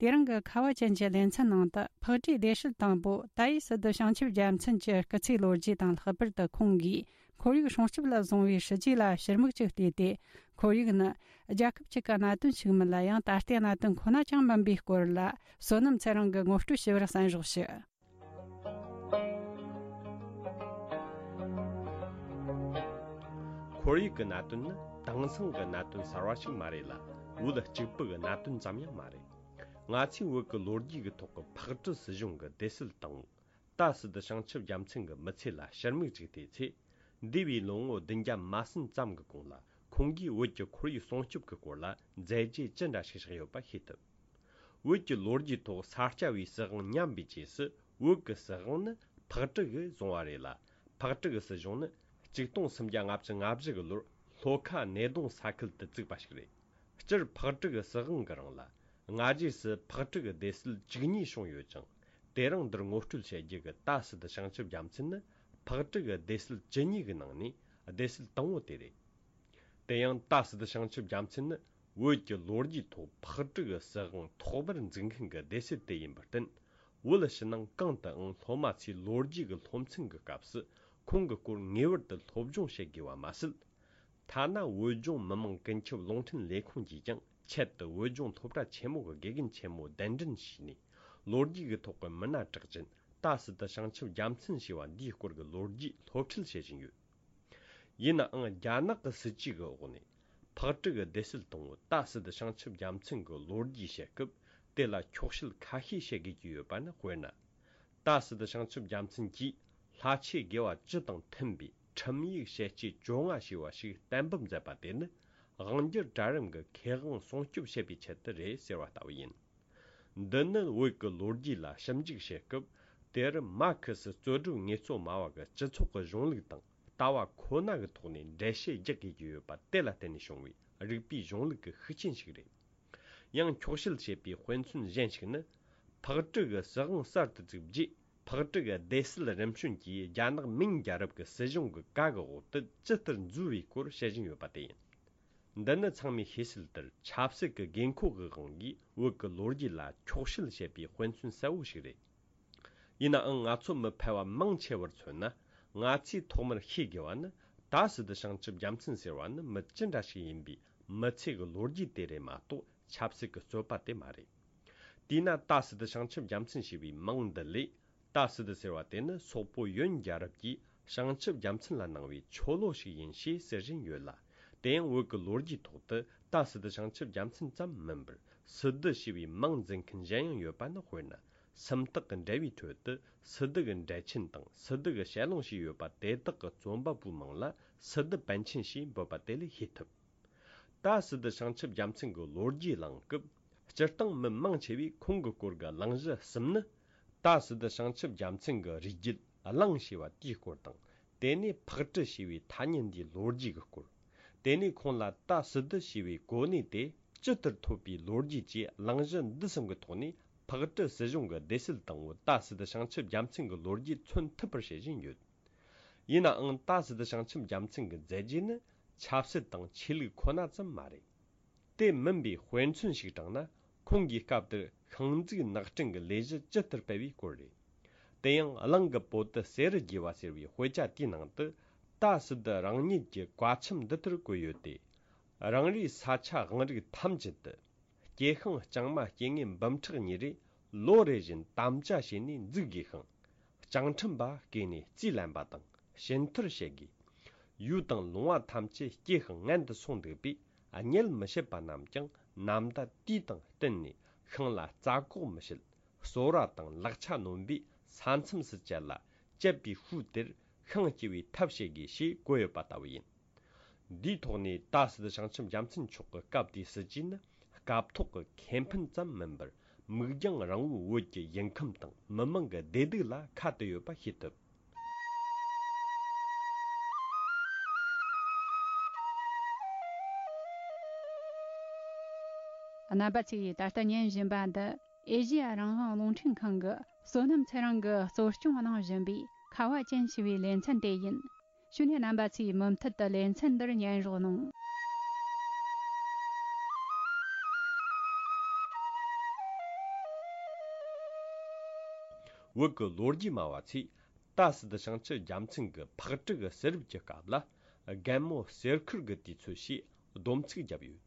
དེ་རིང་གི་ཁ་བ་ཅན་གྱི་ལེ་ཚན་ནང་དུ་ཕག་གྲུའི་སྡེ་སྲིད་དང་པོ་ཏཱ་ཡི་སི་ཏུ་བྱང་ཆུབ་རྒྱལ་མཚན་གྱི་སྐུ་ཚེའི་ལོ་རྒྱུས་དང་། ལྷག་པར་དུ་ཁོང་གིས་ཁོར་ཡུག་སྲུང་སྐྱོབ་ལ་བཟུང་བའི་ཞི་རྒྱས་ལ་ཕྱིར་མིག་ཅིག་བལྟས་ཏེ། ཁོར་ཡུག་ནི་རྒྱལ་ཁབ་གཅིག་གི་གནད་དོན་ཞིག་མིན་ལ་ཡང་ད་ལྟའི་གནད་དོན་ཁོ་ན་ཅང་མིན་པའི་སྐོར་ལ། བསོད་ནམས་ཚེ་རིང་གིས་ངོ་སྤྲོད་ཞུ་བར་གསན་རོགས་ཞུ། ཁོར་ཡུག་གི་གནད་དོན་ནི་དེང་སང་གི་གནད་དོན་གསར་བ་ཞིག་མ་རེད་ལ། བོད་གཅིག་པུ་གི་གནད་དོན་ཙམ་ཡང་མ་རེད། ང་ཚོས་བོད་ཀྱི་ལོ་རྒྱུས་ཀྱི་ཐོག་གི་ཕག་གྲུ་སྲིད་གཞུང་གི་སྡེ་སྲིད་དང་པོ་ཏཱ་སི་ཏུ་བྱང་ཆུབ་རྒྱལ་མཚན་གྱི་མི་ཚེ་ལ་ཕྱིར་མིག་ཅིག་བལྟས་ཚེ། འདས་པའི་ལོ་ངོ་བདུན་བརྒྱ་མ་ཟིན་ཙམ་གྱི་གོང་ལ་ཁོང་གིས་བོད་ཀྱི་ཁོར་ཡུག་སྲུང་སྐྱོབ་ཀྱི་སྐོར་ལ་མཛད་རྗེས་ཅི་འདྲ་ཞིག་བཞག་ཡོད་པ་ཤེས་ཐུབ། བོད་ཀྱི་ལོ་རྒྱུས་ཐོག་ས་སྐྱ་པའི་སྲིད་དབང་ཉམས་པའི་རྗེས་སུ། བོད་ཀྱི་སྲིད་དབང་ནི་ཕག་གྲུ་གིས་བཟུང་བ་རེད་ལ། ཕག་གྲུ་གི་སྲིད་གཞུང་ནི་གཅིག་སྟོང་སུམ་བརྒྱ་ལྔ་བཅུ་ང་བཞི་གི་ལོར་ལྷོ་ཁ་སྣེ་གདོང་ས་ཁུལ་དུ་བཙུགས་པ་ཞིག་རེད། སྤྱིར་ཕག་གྲུ་གི་སྲིད་དབང་གི་རིང་ལ་སྔ་རྗེས་སུ་ཕག་གྲུ་གི་སྡེ་སྲིད་བཅུ་གཉིས་བྱུང་ཡོད་ཅིང་། དེ་རིང་འདིར་ངོ་སྤྲོད་བྱེད་རྒྱུ་གི་ཏཱ་སི་ཏུ་བྱང་ཆུབ་རྒྱལ་མཚན་ནི་ཕག་གྲུ་གི་སྡེ་སྲིད་བཅུ་གཉིས་ཀྱི་ནང་ནས་སྡེ་སྲིད་དང་པོ་དེ་རེད། དེ་ཡང་ཏཱ་སི་ཏུ་བྱང་ཆུབ་རྒྱལ་མཚན་ནི་བོད་ཀྱི་ལོ་རྒྱུས་ཐོག་ཕག་གྲུ་གི་སྲིད་དབང་ཐོག་མར་འཛུགས་མཁན་གྱི་སྡེ་སྲིད་དེ་ཡིན་པར་བརྟེན། བོད་ཕྱི་ནང་གང་དུའང་སློབ་མ་ཚོས་ལོ་རྒྱུས་ཀྱི་སློབ་ཚན་གྱི་སྐབས་སུ་ཁོང་གི་སྐོར་ངེས་པར་དུ་སློབ་སྦྱོང་བྱེད་དགོས་པ་མ་ཟད། ཐ་ན་བོད་ལྗོངས་མི་དམངས་ཀུན་ཁྱབ་རླུང་འཕྲིན་ལས་ཁུངས་ཀྱིས་ཀྱང་ཆེད་དུ་བོད་ལྗོངས་སློབ་གྲྭ་ཆེན་མོ་གི་དགེ་རྒན་ཆེན་མོ་གདན་འདྲེན་བྱས་ནས། ལོ་རྒྱུས་ཀྱི་ཐོག་གི་མི་སྣ་གྲགས་ཅན་ཏཱ་སི་ཏུ་བྱང་ཆུབ་རྒྱལ་མཚན་ཞེས་པ་འདིའི་སྐོར་གྱི་ལོ་རྒྱུས་སློབ་ཁྲིད་བྱེད་བཞིན་ཡོད། ཡིན་ནའང་རྒྱ་ནག་གི་སྲིད་ཇུས་ཀྱི་འོག་ནས་ཕག་གྲུ་གི་སྡེ་སྲིད་དང་པོ་ཏཱ་སི་ཏུ་བྱང་ཆུབ་རྒྱལ་མཚན་གྱི་ལོ་རྒྱུས་བཤད་སྐབས། དེ་ལ་འཁྱོག་བཤད་ཁ་ཤས་བཤད་དགོས་ཀྱི་ཡོད་པ་ནི། དཔེར་ན། ཏཱ་སི་ཏུ་བྱང་ཆུབ་རྒྱལ་མཚན་གྱིས་ལྷ་ཆོས་དགེ་བ་བཅུ་དང་མཐུན་པའི་ཁྲིམས་ཡིག་ཞལ་ལྕེ་བཅོ་ལྔ་ཞེས་པ་ཞིག་གཏན་འབེབས་མཛད་པ་དེ་ནི་དབང་སྒྱུར་གྲལ་རིམ་གྱི་ཁེ་དབང་སྲུང་སྐྱོབ་བྱེད་པའི་ཆེད་དུ་རེད་ཟེར་བ་ལྟ་བུ་ཡིན། འདི་ནི་བོད་ཀྱི་ལོ་རྒྱུས་ལ་ཞིབ་འཇུག་བྱེད་སྐབས། དེར་མར་ཁེ་སི་རྩོད་སྒྲུབ་ངལ་རྩོལ་སྨྲ་བ་གི་སྤྱི་ཚོགས་ཀྱི་གཞུང་ལུགས་དང་ལྟ་བ་ཁོ་ན་གི་ཐོག་ནས་འགྲེལ་བཤད་རྒྱག་དགོས་ཀྱི་ཡོད་པ་དེ་ལ་བརྟེན་ནས་བྱུང་བའི་རིག་པའི་གཞུང་ལུགས་ཀྱི་ཤུགས་རྐྱེན་ཞིག་རེད། ཡང་འཁྱོག་བཤད་བྱེད་པའི་དཔེ་མཚོན་གཞན་ཞིག་ནི། ཕག་གྲུ་གི་སྲིད་དབང་གསར་དུ་བཙུགས་རྗེས། ཕག་གྲུ་གི་སྡེ་སྲིད་རིམ་བྱོན་གྱིས་རྒྱ་ནག་མིང་རྒྱལ་རབས་ཀྱི་སྲིད་གཞུང་གི་བཀའ་གི་འོག་ཏུ་ཇི་ལྟར་འཛུལ་བའི་སྐོར་བཤད་བཞིན་ཡོད་པ་དེ་ཡིན། འདི་ནི་ཚང་མས་ཤེས་གསལ་ལྟར་ཆབ་སྲིད་ཀྱི་དགོས་མཁོ་གི་དབང་གིས་བོད་ཀྱི་ལོ་རྒྱུས་ལ་འཁྱོག་བཤད་བྱེད་པའི་དཔེ་མཚོན་གསལ་བོ་ཞིག་རེད། ཡིན་ནའང་ང་ཚོ་མི་ཕལ་བ་མང་ཆེ་བར་མཚོན་ན། ང་ཚོས་ཐོག་མར་ཤེས་དགོས་པ་ནི། ཏཱ་སི་ཏུ་བྱང་ཆུབ་རྒྱལ་མཚན་ཟེར་བ་ནི་མི་ཅི་འདྲ་ཞིག་ཡིན་པའི་མི་ཚེ་གི་ལོ་རྒྱུས་དེ་རེད་མ་གཏོགས། ཆབ་སྲིད་ཀྱི་རྩོད་པ་དེ་མ་རེད། དེས་ན་ཏཱ་སི་ཏུ་བྱང་ཆུབ་རྒྱལ་མཚན་ཞེས་པའི་མིང་འདི་ལས། ཏཱ་སི་ཏུ་ཟེར་བ་དེ་ནི་སོག་པོ་ཡོན་རྒྱལ་རབས་ཀྱིས་བྱང་ཆུབ་རྒྱལ་མཚན་ལ་གནང་བའི་ཆོ་ལོ་ཞིག་ཡིན་ཞེས་ཟེར་བཞིན་ཡོད་ལ། དེ་ཡང་བོད་ཀྱི་ལོ་རྒྱུས་ཐོག་ཏུ་ཏཱ་སི་ཏུ་བྱང་ཆུབ་རྒྱལ་མཚན་ཙམ་མིན་པར། སི་ཏུ་ཞེས་པའི་མིང་འཛིན་མཁན་གཞན་ཡང་ཡོད་པ་ནི། དཔེར་ན། སུམ་རྟགས་ཀྱི་འགྲེལ་བའི་ཁྲོད་དུ་སི་ཏུ་གི་འགྲེལ་ཆེན་དང་སི་ཏུ་གི་ཞལ་ལུང་ཞེས་ཡོད་པ་དེ་དག་གི་རྩོམ་པ་པོའི་མིང་ལ་སི་ཏུ་པཎ་ཆེན་ཞེས་འབོད་པ་དེ་ལས་ཤེས་ཐུབ། ཏཱ་སི་ཏུ་བྱང་ཆུབ་རྒྱལ་མཚན་གྱི་ལོ་རྒྱུས་གླེང་སྐབས། སྤྱིར་བཏང་མི་མང་ཆེ་བས་ཁོང་གི་སྐོར་གྱི་གླེང་གཞི་གསུམ་ནི། ཏཱ་སི་ཏུ་བྱང་ཆུབ་རྒྱལ་མཚན་གྱི་རིགས་རྒྱུད་གླེང་ཞེས་པ་དེའི་སྐོར་དང་། དེ་ནས་ཕག་གྲུ་ཞེས་པའི་ཐ་སྙད་འདིའི་ལོ་རྒྱུས་ཀྱི་སྐོར། དེ་ནས་ཁོང་ལ་ཏཱ་སི་ཏུ་ཞེས་པའི་གོ་གནས་དེ་ཇི་ལྟར་ཐོབ་པའི་ལོ་རྒྱུས་བཅས། གླེང་གཞི་འདི་གསུམ་གྱི་ཐོག་ནས་ཕག་གྲུ་སྲིད་གཞུང་གི་སྡེ་སྲིད་དང་པོ་ཏཱ་སི་ཏུ་བྱང་ཆུབ་རྒྱལ་མཚན་གྱི་ལོ་རྒྱུས་མཚོན་ཐུབ་པར་བྱེད་བཞིན་ཡོད། ཡིན་ནའང་ཏཱ་སི་ཏུ་བྱང་ཆུབ་རྒྱལ་མཚན་གྱི་མཛད་རྗེས་ནི་ཆབ་སྲིད་དང་ཆོས་ལུགས་ཁོ་ན་ཙམ་མ་རེད། དེ་མིན་པའི་དཔེ་མཚོན་ཞིག་དྲངས་ན། ཁོང་གིས་སྐབས་དེར་ཤིང་འཛུགས་ནགས་སྐྲུན་གྱི་ལས་གཞི་ཇི་ལྟར་སྤེལ་བའི་སྐོར་རེད། དེ་ཡང་གླིང་གི་བོད་དུ་གསེར་རི་རྒྱས་པ་ཟེར་བའི་དཔེ་ཆ་དེའི་ནང་དུ། ཏཱ་སི་ཏུ་རང་ཉིད་ཀྱི་བཀའ་ཆེམས་འདི་ལྟར་བཀོད་ཡོད་དེ། རང་རེའི་ས་ཆ་དབང་རིགས་ཐམས་ཅད་དུ། སྐྱེ་ཤིང་ལྕང་མ་སྐྱེ་དངོས་འབུམ་ཕྲག་གཉིས་རེ་ལོ་རེ་བཞིན་དམ་བཅའ་བྱས་ནས་འཛུགས་དགོས་ཤིང་། བྱང་ཁྲིམས་པ་བསྐོས་ནས་རྩིས་ལེན་པ་དང་ཞུན་ཐར་བྱེད་དགོས། ཡུལ་དང་ལུང་བ་ཐམས་ཅད་སྐྱེ་ཤིང་མངལ་དུ་སོང་འདུག་པས། གཉེད་མི་བྱེད་པ་རྣམས་ཀྱང་ནམ་ཟླ་དུས་དང་བསྟུན་ནས་ཤིང་ལ་རྩྭ་སྐོགས་མི་བྱེད། གསོལ་བ་དང་ལག་ཆ་ནོན་པས་ས་མཚམས་སུ་བཅད་ལ། བཅད་པའི་ཤུལ་དེར་ཤིང་སྐྱེ་བའི་ཐབས་བྱེད་དགོས་ཞེས་བཀོད་ཡོད་པ་ལྟ་བུ་ཡིན། འདིའི་ཐོག་ནས་ད་སྲིད་བྱང་ཆུབ་རྒྱལ་མཚན་མཆོག་གི་སྐབས་དེའི་སྲིད་ཇུས་ནི། སྐབས་ཐོག་གི་ཁེ་ཕན་ཙམ་མིན་པར། མིག་རྒྱང་རིང་བོའི་བོད་ཀྱི་ཡུལ་ཁམས་དང་མི་དམངས་ཀྱི་བདེ་སྡུག་ལ་ཁ་གཏད་ཡོད་པ་ཤེས་ཐུབ། རྣམ་པ་ཚོས་ད་ལྟ་ཉན་བཞིན་པ་འདི་ཨེ་ཤེ་ཡ་རང་དབང་རླུང་འཕྲིན་ཁང་གི་བསོད་ནམས་ཚེ་རིང་གིས་གཙོ་སྐྱོང་གནང་བཞིན་པའི་ཁ་བ་ཅན་ཞེས་པའི་ལེ་ཚན་དེ་ཡིན། ཞུ་ནས་རྣམ་པ་ཚོས་མུ་མཐུད་དུ་ལེ་ཚན་འདིར་ཉན་རོགས་གནང་། བོད་ཀྱི་ལོ་རྒྱུས་སྨྲ་བ་ཚོས་ད་སྲིད་བྱང་ཆུབ་རྒྱལ་མཚན་གྱི་ཕག་གྲུ་གི་གསེར་རུབ་ཀྱི་སྐབས་ལ་རྒན་མོ་གསེར་ཁུར་གྱི་དུས་ཚོད་ཞེས་སྡོམ་ཚིག་བརྒྱབ་ཡོད།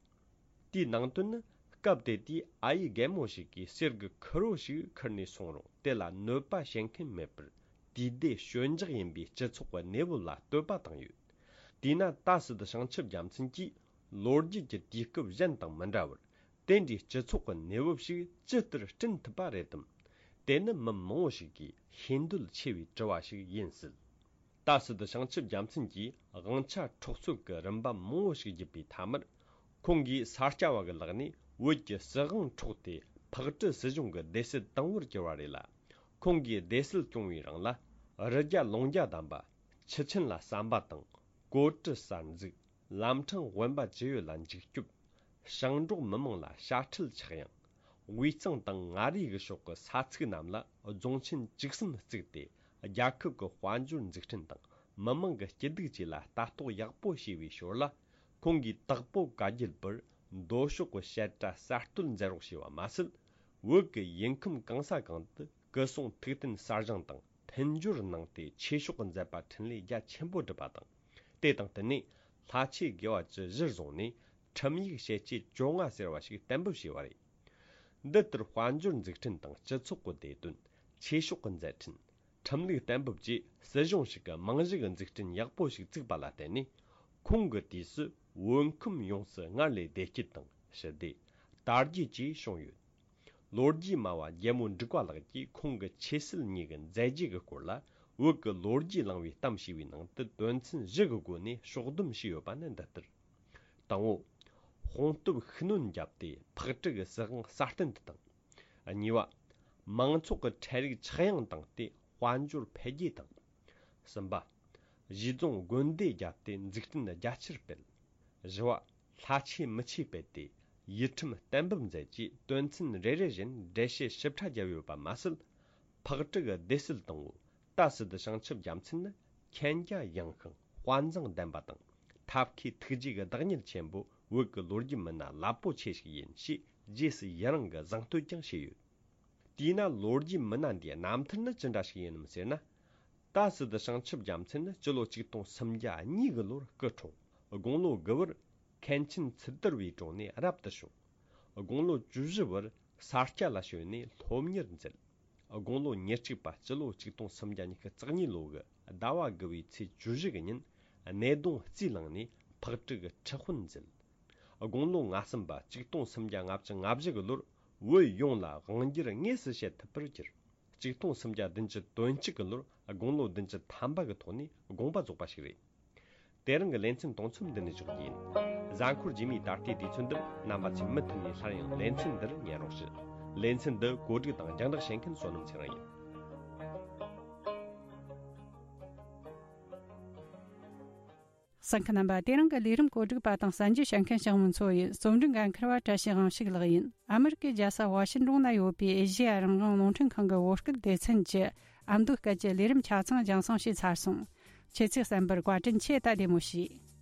དེའི་ནང་དོན་ནི། སྐབས་དེ་དུས་ཨ་ཡེ་རྒན་མོ་ཞིག་གིས་གསེར་གྱི་ཁུར་བོ་ཞིག་ཁུར་ནས་སོང་རུང་དེ་ལ་གནོད་པ་བྱེད་མཁན་མེད་པར། དུས་བདེ་ཞོད་འཇགས་ཡིན་པའི་སྤྱི་ཚོགས་ཀྱི་གནས་བབ་ལ་བསྟོད་པ་བཏང་ཡོད། དེས་ན་ད་སྲིད་བྱང་ཆུབ་རྒྱལ་མཚན་གྱིས་ལོ་རྒྱུས་ཀྱི་དུས་སྐབས་གཞན་དང་མི་འདྲ་བར། དེ་འདྲའི་སྤྱི་ཚོགས་ཀྱི་གནས་བབ་ཞིག་ཇི་ལྟར་བསྐྲུན་ཐུབ་པ་རེད་དམ། དེ་ནི་མི་མང་བོ་ཞིག་གིས་ཤེས་འདོད་ཆེ་བའི་དྲི་བ་ཞིག་ཡིན་སྲིད། ད་སྲིད་བྱང་ཆུབ་རྒྱལ་མཚན་གྱིས་དབང་ཆ་འཕྲོག་རྩོད་ཀྱི་རིམ་པ་མང་བོ་ཞིག་བརྒྱུད་པའི་མཐའ་མར། ཁོང་གིས་ས་སྐྱ་བ་གི་ལག་ནས་བོད་ཀྱི་སྲིད་དབང་འཕྲོག་སྟེ་ཕག་གྲུ་སྲིད་གཞུང་གི་སྡེ་སྲིད་དང་པོར་གྱུར་བ་རེད་ལ། ཁོང་གིས་སྡེ་སྲིད་སྐྱོང་བའི་རིང་ལ། རི་རྒྱ་ལུང་རྒྱ་བསྡམས་པ། ཆུ་ཆེན་ལ་ཟམ་པ་དང་། གོ་གྲུ་གསར་འཛུགས། ལམ་འཕྲང་དབེན་པ་ཅི་ཡོད་ལ་འཇིགས་སྐྱོབ། ཞིང་འབྲོག་མི་མང་ལ་དཔྱ་ཁྲལ་ཆག་ཡང་། དབུས་གཙང་དང་མངའ་རིས་ཀྱི་ཕྱོགས་ཀྱི་ས་ཚིགས་རྣམས་ལ་རྫོང་ཆེན་བཅུ་གསུམ་བཙུགས་ཏེ། རྒྱལ་ཁབ་ཀྱི་དཔལ་འབྱོར་འཛུགས་སྐྲུན་དང་མི་དམངས་ཀྱི་སྐྱིད་སྡུག་བཅས་ལ་ལྟ་རྟོག་ཡག་པོ་བྱས་པའི་ཞོར་ལ། ཁོང་གིས་དྭགས་པོ་བཀའ་བརྒྱུད་པར་མདོ་ཕྱོགས་ཀྱི་བཤད་གྲྭ་གསར་གཏོད་མཛད་རོགས་བྱས་པ་མ་ཟད། བོད་ཀྱི་ཡུལ་ཁམས་གང་ས་གང་དུ་སྐུ་སྲུང་ཐུགས་རྟེན་གསར་བཞེངས་དང་མཐུན་སྦྱོར་གནང་སྟེ་ཆོས་ཕྱོགས་ཀྱི་མཛད་པ་འཕྲིན་ལས་རྒྱ་ཆེན་པོ་བསྒྲུབས་པ་དང་། དེ་དང་བསྟུན་ནས་ལྷ་ཆོས་དགེ་བ་བཅུ་གཞིར་བཟུང་ནས་ཁྲིམས་ཡིག་ཞལ་ལྕེ་བཅོ་ལྔ་ཟེར་བ་ཞིག་གཏན་འབེབས་བྱས་པ་རེད། འདི་ལྟར་དཔལ་འབྱོར་འཛུགས་སྐྲུན་དང་སྤྱི་ཚོགས་ཀྱི་བདེ་དོན། ཆོས་ཕྱོགས་ཀྱི་མཛད་འཕྲིན། ཁྲིམས་ལུགས་གཏན་འབེབས་བཅས་སྲིད་གཞུང་ཞིག་གི་རྨང་གཞི་གི་འཛུགས་སྐྲུན་ཡག་པོ་ཞིག་བཙུགས་པ་ལ་བརྟེན་ནས། ཁོང་གི་དུས་སུ་བོད་ཁམས་ཡོངས་སུ་སྔར་ལས་བདེ་སྐྱིད་དང་ཞི་བདེ། དར་རྒྱས་བཅས་བྱུང་ཡོད། ལོ་རྒྱུས་སྨྲ་བ་རྒྱལ་མོ་འབྲུག་པ་ལགས་ཀྱིས་ཁོང་གི་ཆོས་སྲིད་གཉིས་ཀྱི་མཛད་རྗེས་ཀྱི་སྐོར་ལ། བོད་ཀྱི་ལོ་རྒྱུས་བླང་བའི་གཏམ་ཞེས་པའི་ནང་དུ་དོན་ཚན་བཞི་གི་སྒོ་ནས་ཕྱོགས་བསྡོམས་བྱས་ཡོད་པ་ནི་འདི་ལྟར། དང་པོ། དཔུང་སྟོབས་ཤུགས་སྣོན་བརྒྱབ་སྟེ་ཕག་གྲུ་གི་སྲིད་དབང་སྲ་བརྟན་དུ་བཏང་། གཉིས་པ། མང་ཚོགས་ཀྱི་ཁྲལ་རིག་ཆག་ཡང་བཏང་སྟེ་དཔལ་འབྱོར་འཕེལ་རྒྱས་བཏང་། གསུམ་པ། གཞིས་རྫོང་དགོན་སྡེ་བརྒྱབ་སྟེ་འཛུགས་སྐྲུན་རྒྱ་ཆེར་སྤེལ། བཞི་བ། ལྷ་ཆོས་མི་ཆོས་སྤེལ་ཏེ་ཡུལ་ཁྲིམས་གཏན་འབེབས་མཛད་རྗེས་དོན་ཚན་རེ་རེ་བཞིན་འགྲེལ་བཤད་ཞིབ་ཕྲ་བརྒྱབ་ཡོད་པ་མ་ཟད། ཕག་གྲུ་གི་སྡེ་སྲིད་དང་པོ་ད་སྲིད་བྱང་ཆུབ་རྒྱལ་མཚན་ནི་མཁྱེན་རྒྱ་ཡངས་ཤིང་དཔའ་མཛངས་ལྡན་པ་དང་ཐབས་མཁས་ཐུགས་རྗེ་གི་བདག་ཉིད་ཆེན་པོ་བོད་ཀྱི་ལོ་རྒྱུས་མི་སྣ་རླབས་པོ་ཆེ་ཞིག་ཡིན་ཞེས་རྗེས་སུ་ཡི་རང་གི་གཟེངས་བསྟོད་ཀྱང་བྱས་ཡོད། དེས་ན་ལོ་རྒྱུས་མི་སྣ་འདིའི་རྣམ་ཐར་ནི་ཅི་འདྲ་ཞིག་ཡིན་ནམ་ཟེར་ན། ད་སྲིད་བྱང་ཆུབ་རྒྱལ་མཚན་ནི་སྤྱི་ལོ་ཆིག་སྟོང་སུམ་བརྒྱ་གཉིས་གི་ལོར་སྐུ་འཁྲུངས། དགུང་ལོ་དགུ་བར་མཁན་ཆེན་ཚུལ་དར་བའི་དྲུང་ནས་རབ་ཏུ་བྱུང་། དགུང་ལོ་བཅུ་བཞི་བར་ས་སྐྱ་ལ་བྱོན་ནས་སློབ་གཉེར་མཛད། དགུང་ལོ་ཉེར་གཅིག་པ་སྤྱི་ལོ་ཆིག་སྟོང་སུམ་བརྒྱ་ཉི་ཤུ་རྩ་གཉིས་ལོ་གི་ཟླ་བ་དགུ་བའི་ཚེས་བཅུ་བཞི་གི་ཉིན་ནེ་གདོང་རྩིས་བླངས་ནས་ཕག་གྲུ་གི་ཁྲི་དཔོན་མཛད། དགུང་ལོ་ང་གསུམ་པ་ཆིག་སྟོང་སུམ་བརྒྱ་ལྔ་བཅུ་ང་བཞི་གི་ལོར་བོད་ཡོངས་ལ་དབང་སྒྱུར་དངོས་སུ་བྱེད་ཐུབ་པར་གྱུར། ཆིག་སྟོང་སུམ་བརྒྱ་བདུན་ཅུ་དོན་གཅིག་གི་ལོར་དགུང་ལོ་བདུན་ཅུ་ཐམ་པ་གི་ཐོག་ནས་དགོངས་པ་རྫོགས་པ་ཞིག་རེད། དེ་རིང་གི་ལེ་ཚན་དུང་མཚམས་འདི་ནས་འཇོག་རྒྱུ་ཡིན། གཟའ་འཁོར་རྗེས་མའི་ད་ལྟའི་དུས་ཚོད་འདིར་རྣམ་པ་ཚོས་མུ་མཐུད་ནས་སླར་ཡང་ལེ་ཚན་འདིར་ཉན་རོགས་ཞུ། ལེ་ཚན་འདི་གོ་སྒྲིག་དང་རྒྱང་བསྒྲགས་བྱེད་མཁན་བསོད་ནམས་ཚེ་རིང་ཡིན། གསན་མཁན་རྣམ་པ། དེ་རིང་གི་ལས་རིམ་གོ་སྒྲིག་པ་དང་གསན་རྒྱུ་བྱེད་མཁན་ཞང་མུན་མཚོ་ཡིན། རྩོམ་སྒྲིག་འགན་འཁུར་བ་བཀྲ་ཤིས་དབང་ཕྱུག་ལགས་ཡིན། ཨ་མི་རི་ཀའི་རྒྱལ་ས་ཝ་ཤིན་ཏོན་ན་ཡོད་པའི་ཨེ་ཤེ་ཡ་རང་དབང་རླུང་འཕྲིན་ཁང་གི་བོད་སྐད་སྡེ་ཚན་གྱི་ཨ་མདོའི་སྐད་ཀྱི་ལས་རིམ་ཆ་ཚང་རྒྱང་སྲིང་བྱས་ཚར་སོང་། ཁྱེད་ཚོས་གསན་པར་བཀའ་དྲིན་ཆེ། ད་བདེ་མོ་བྱོས།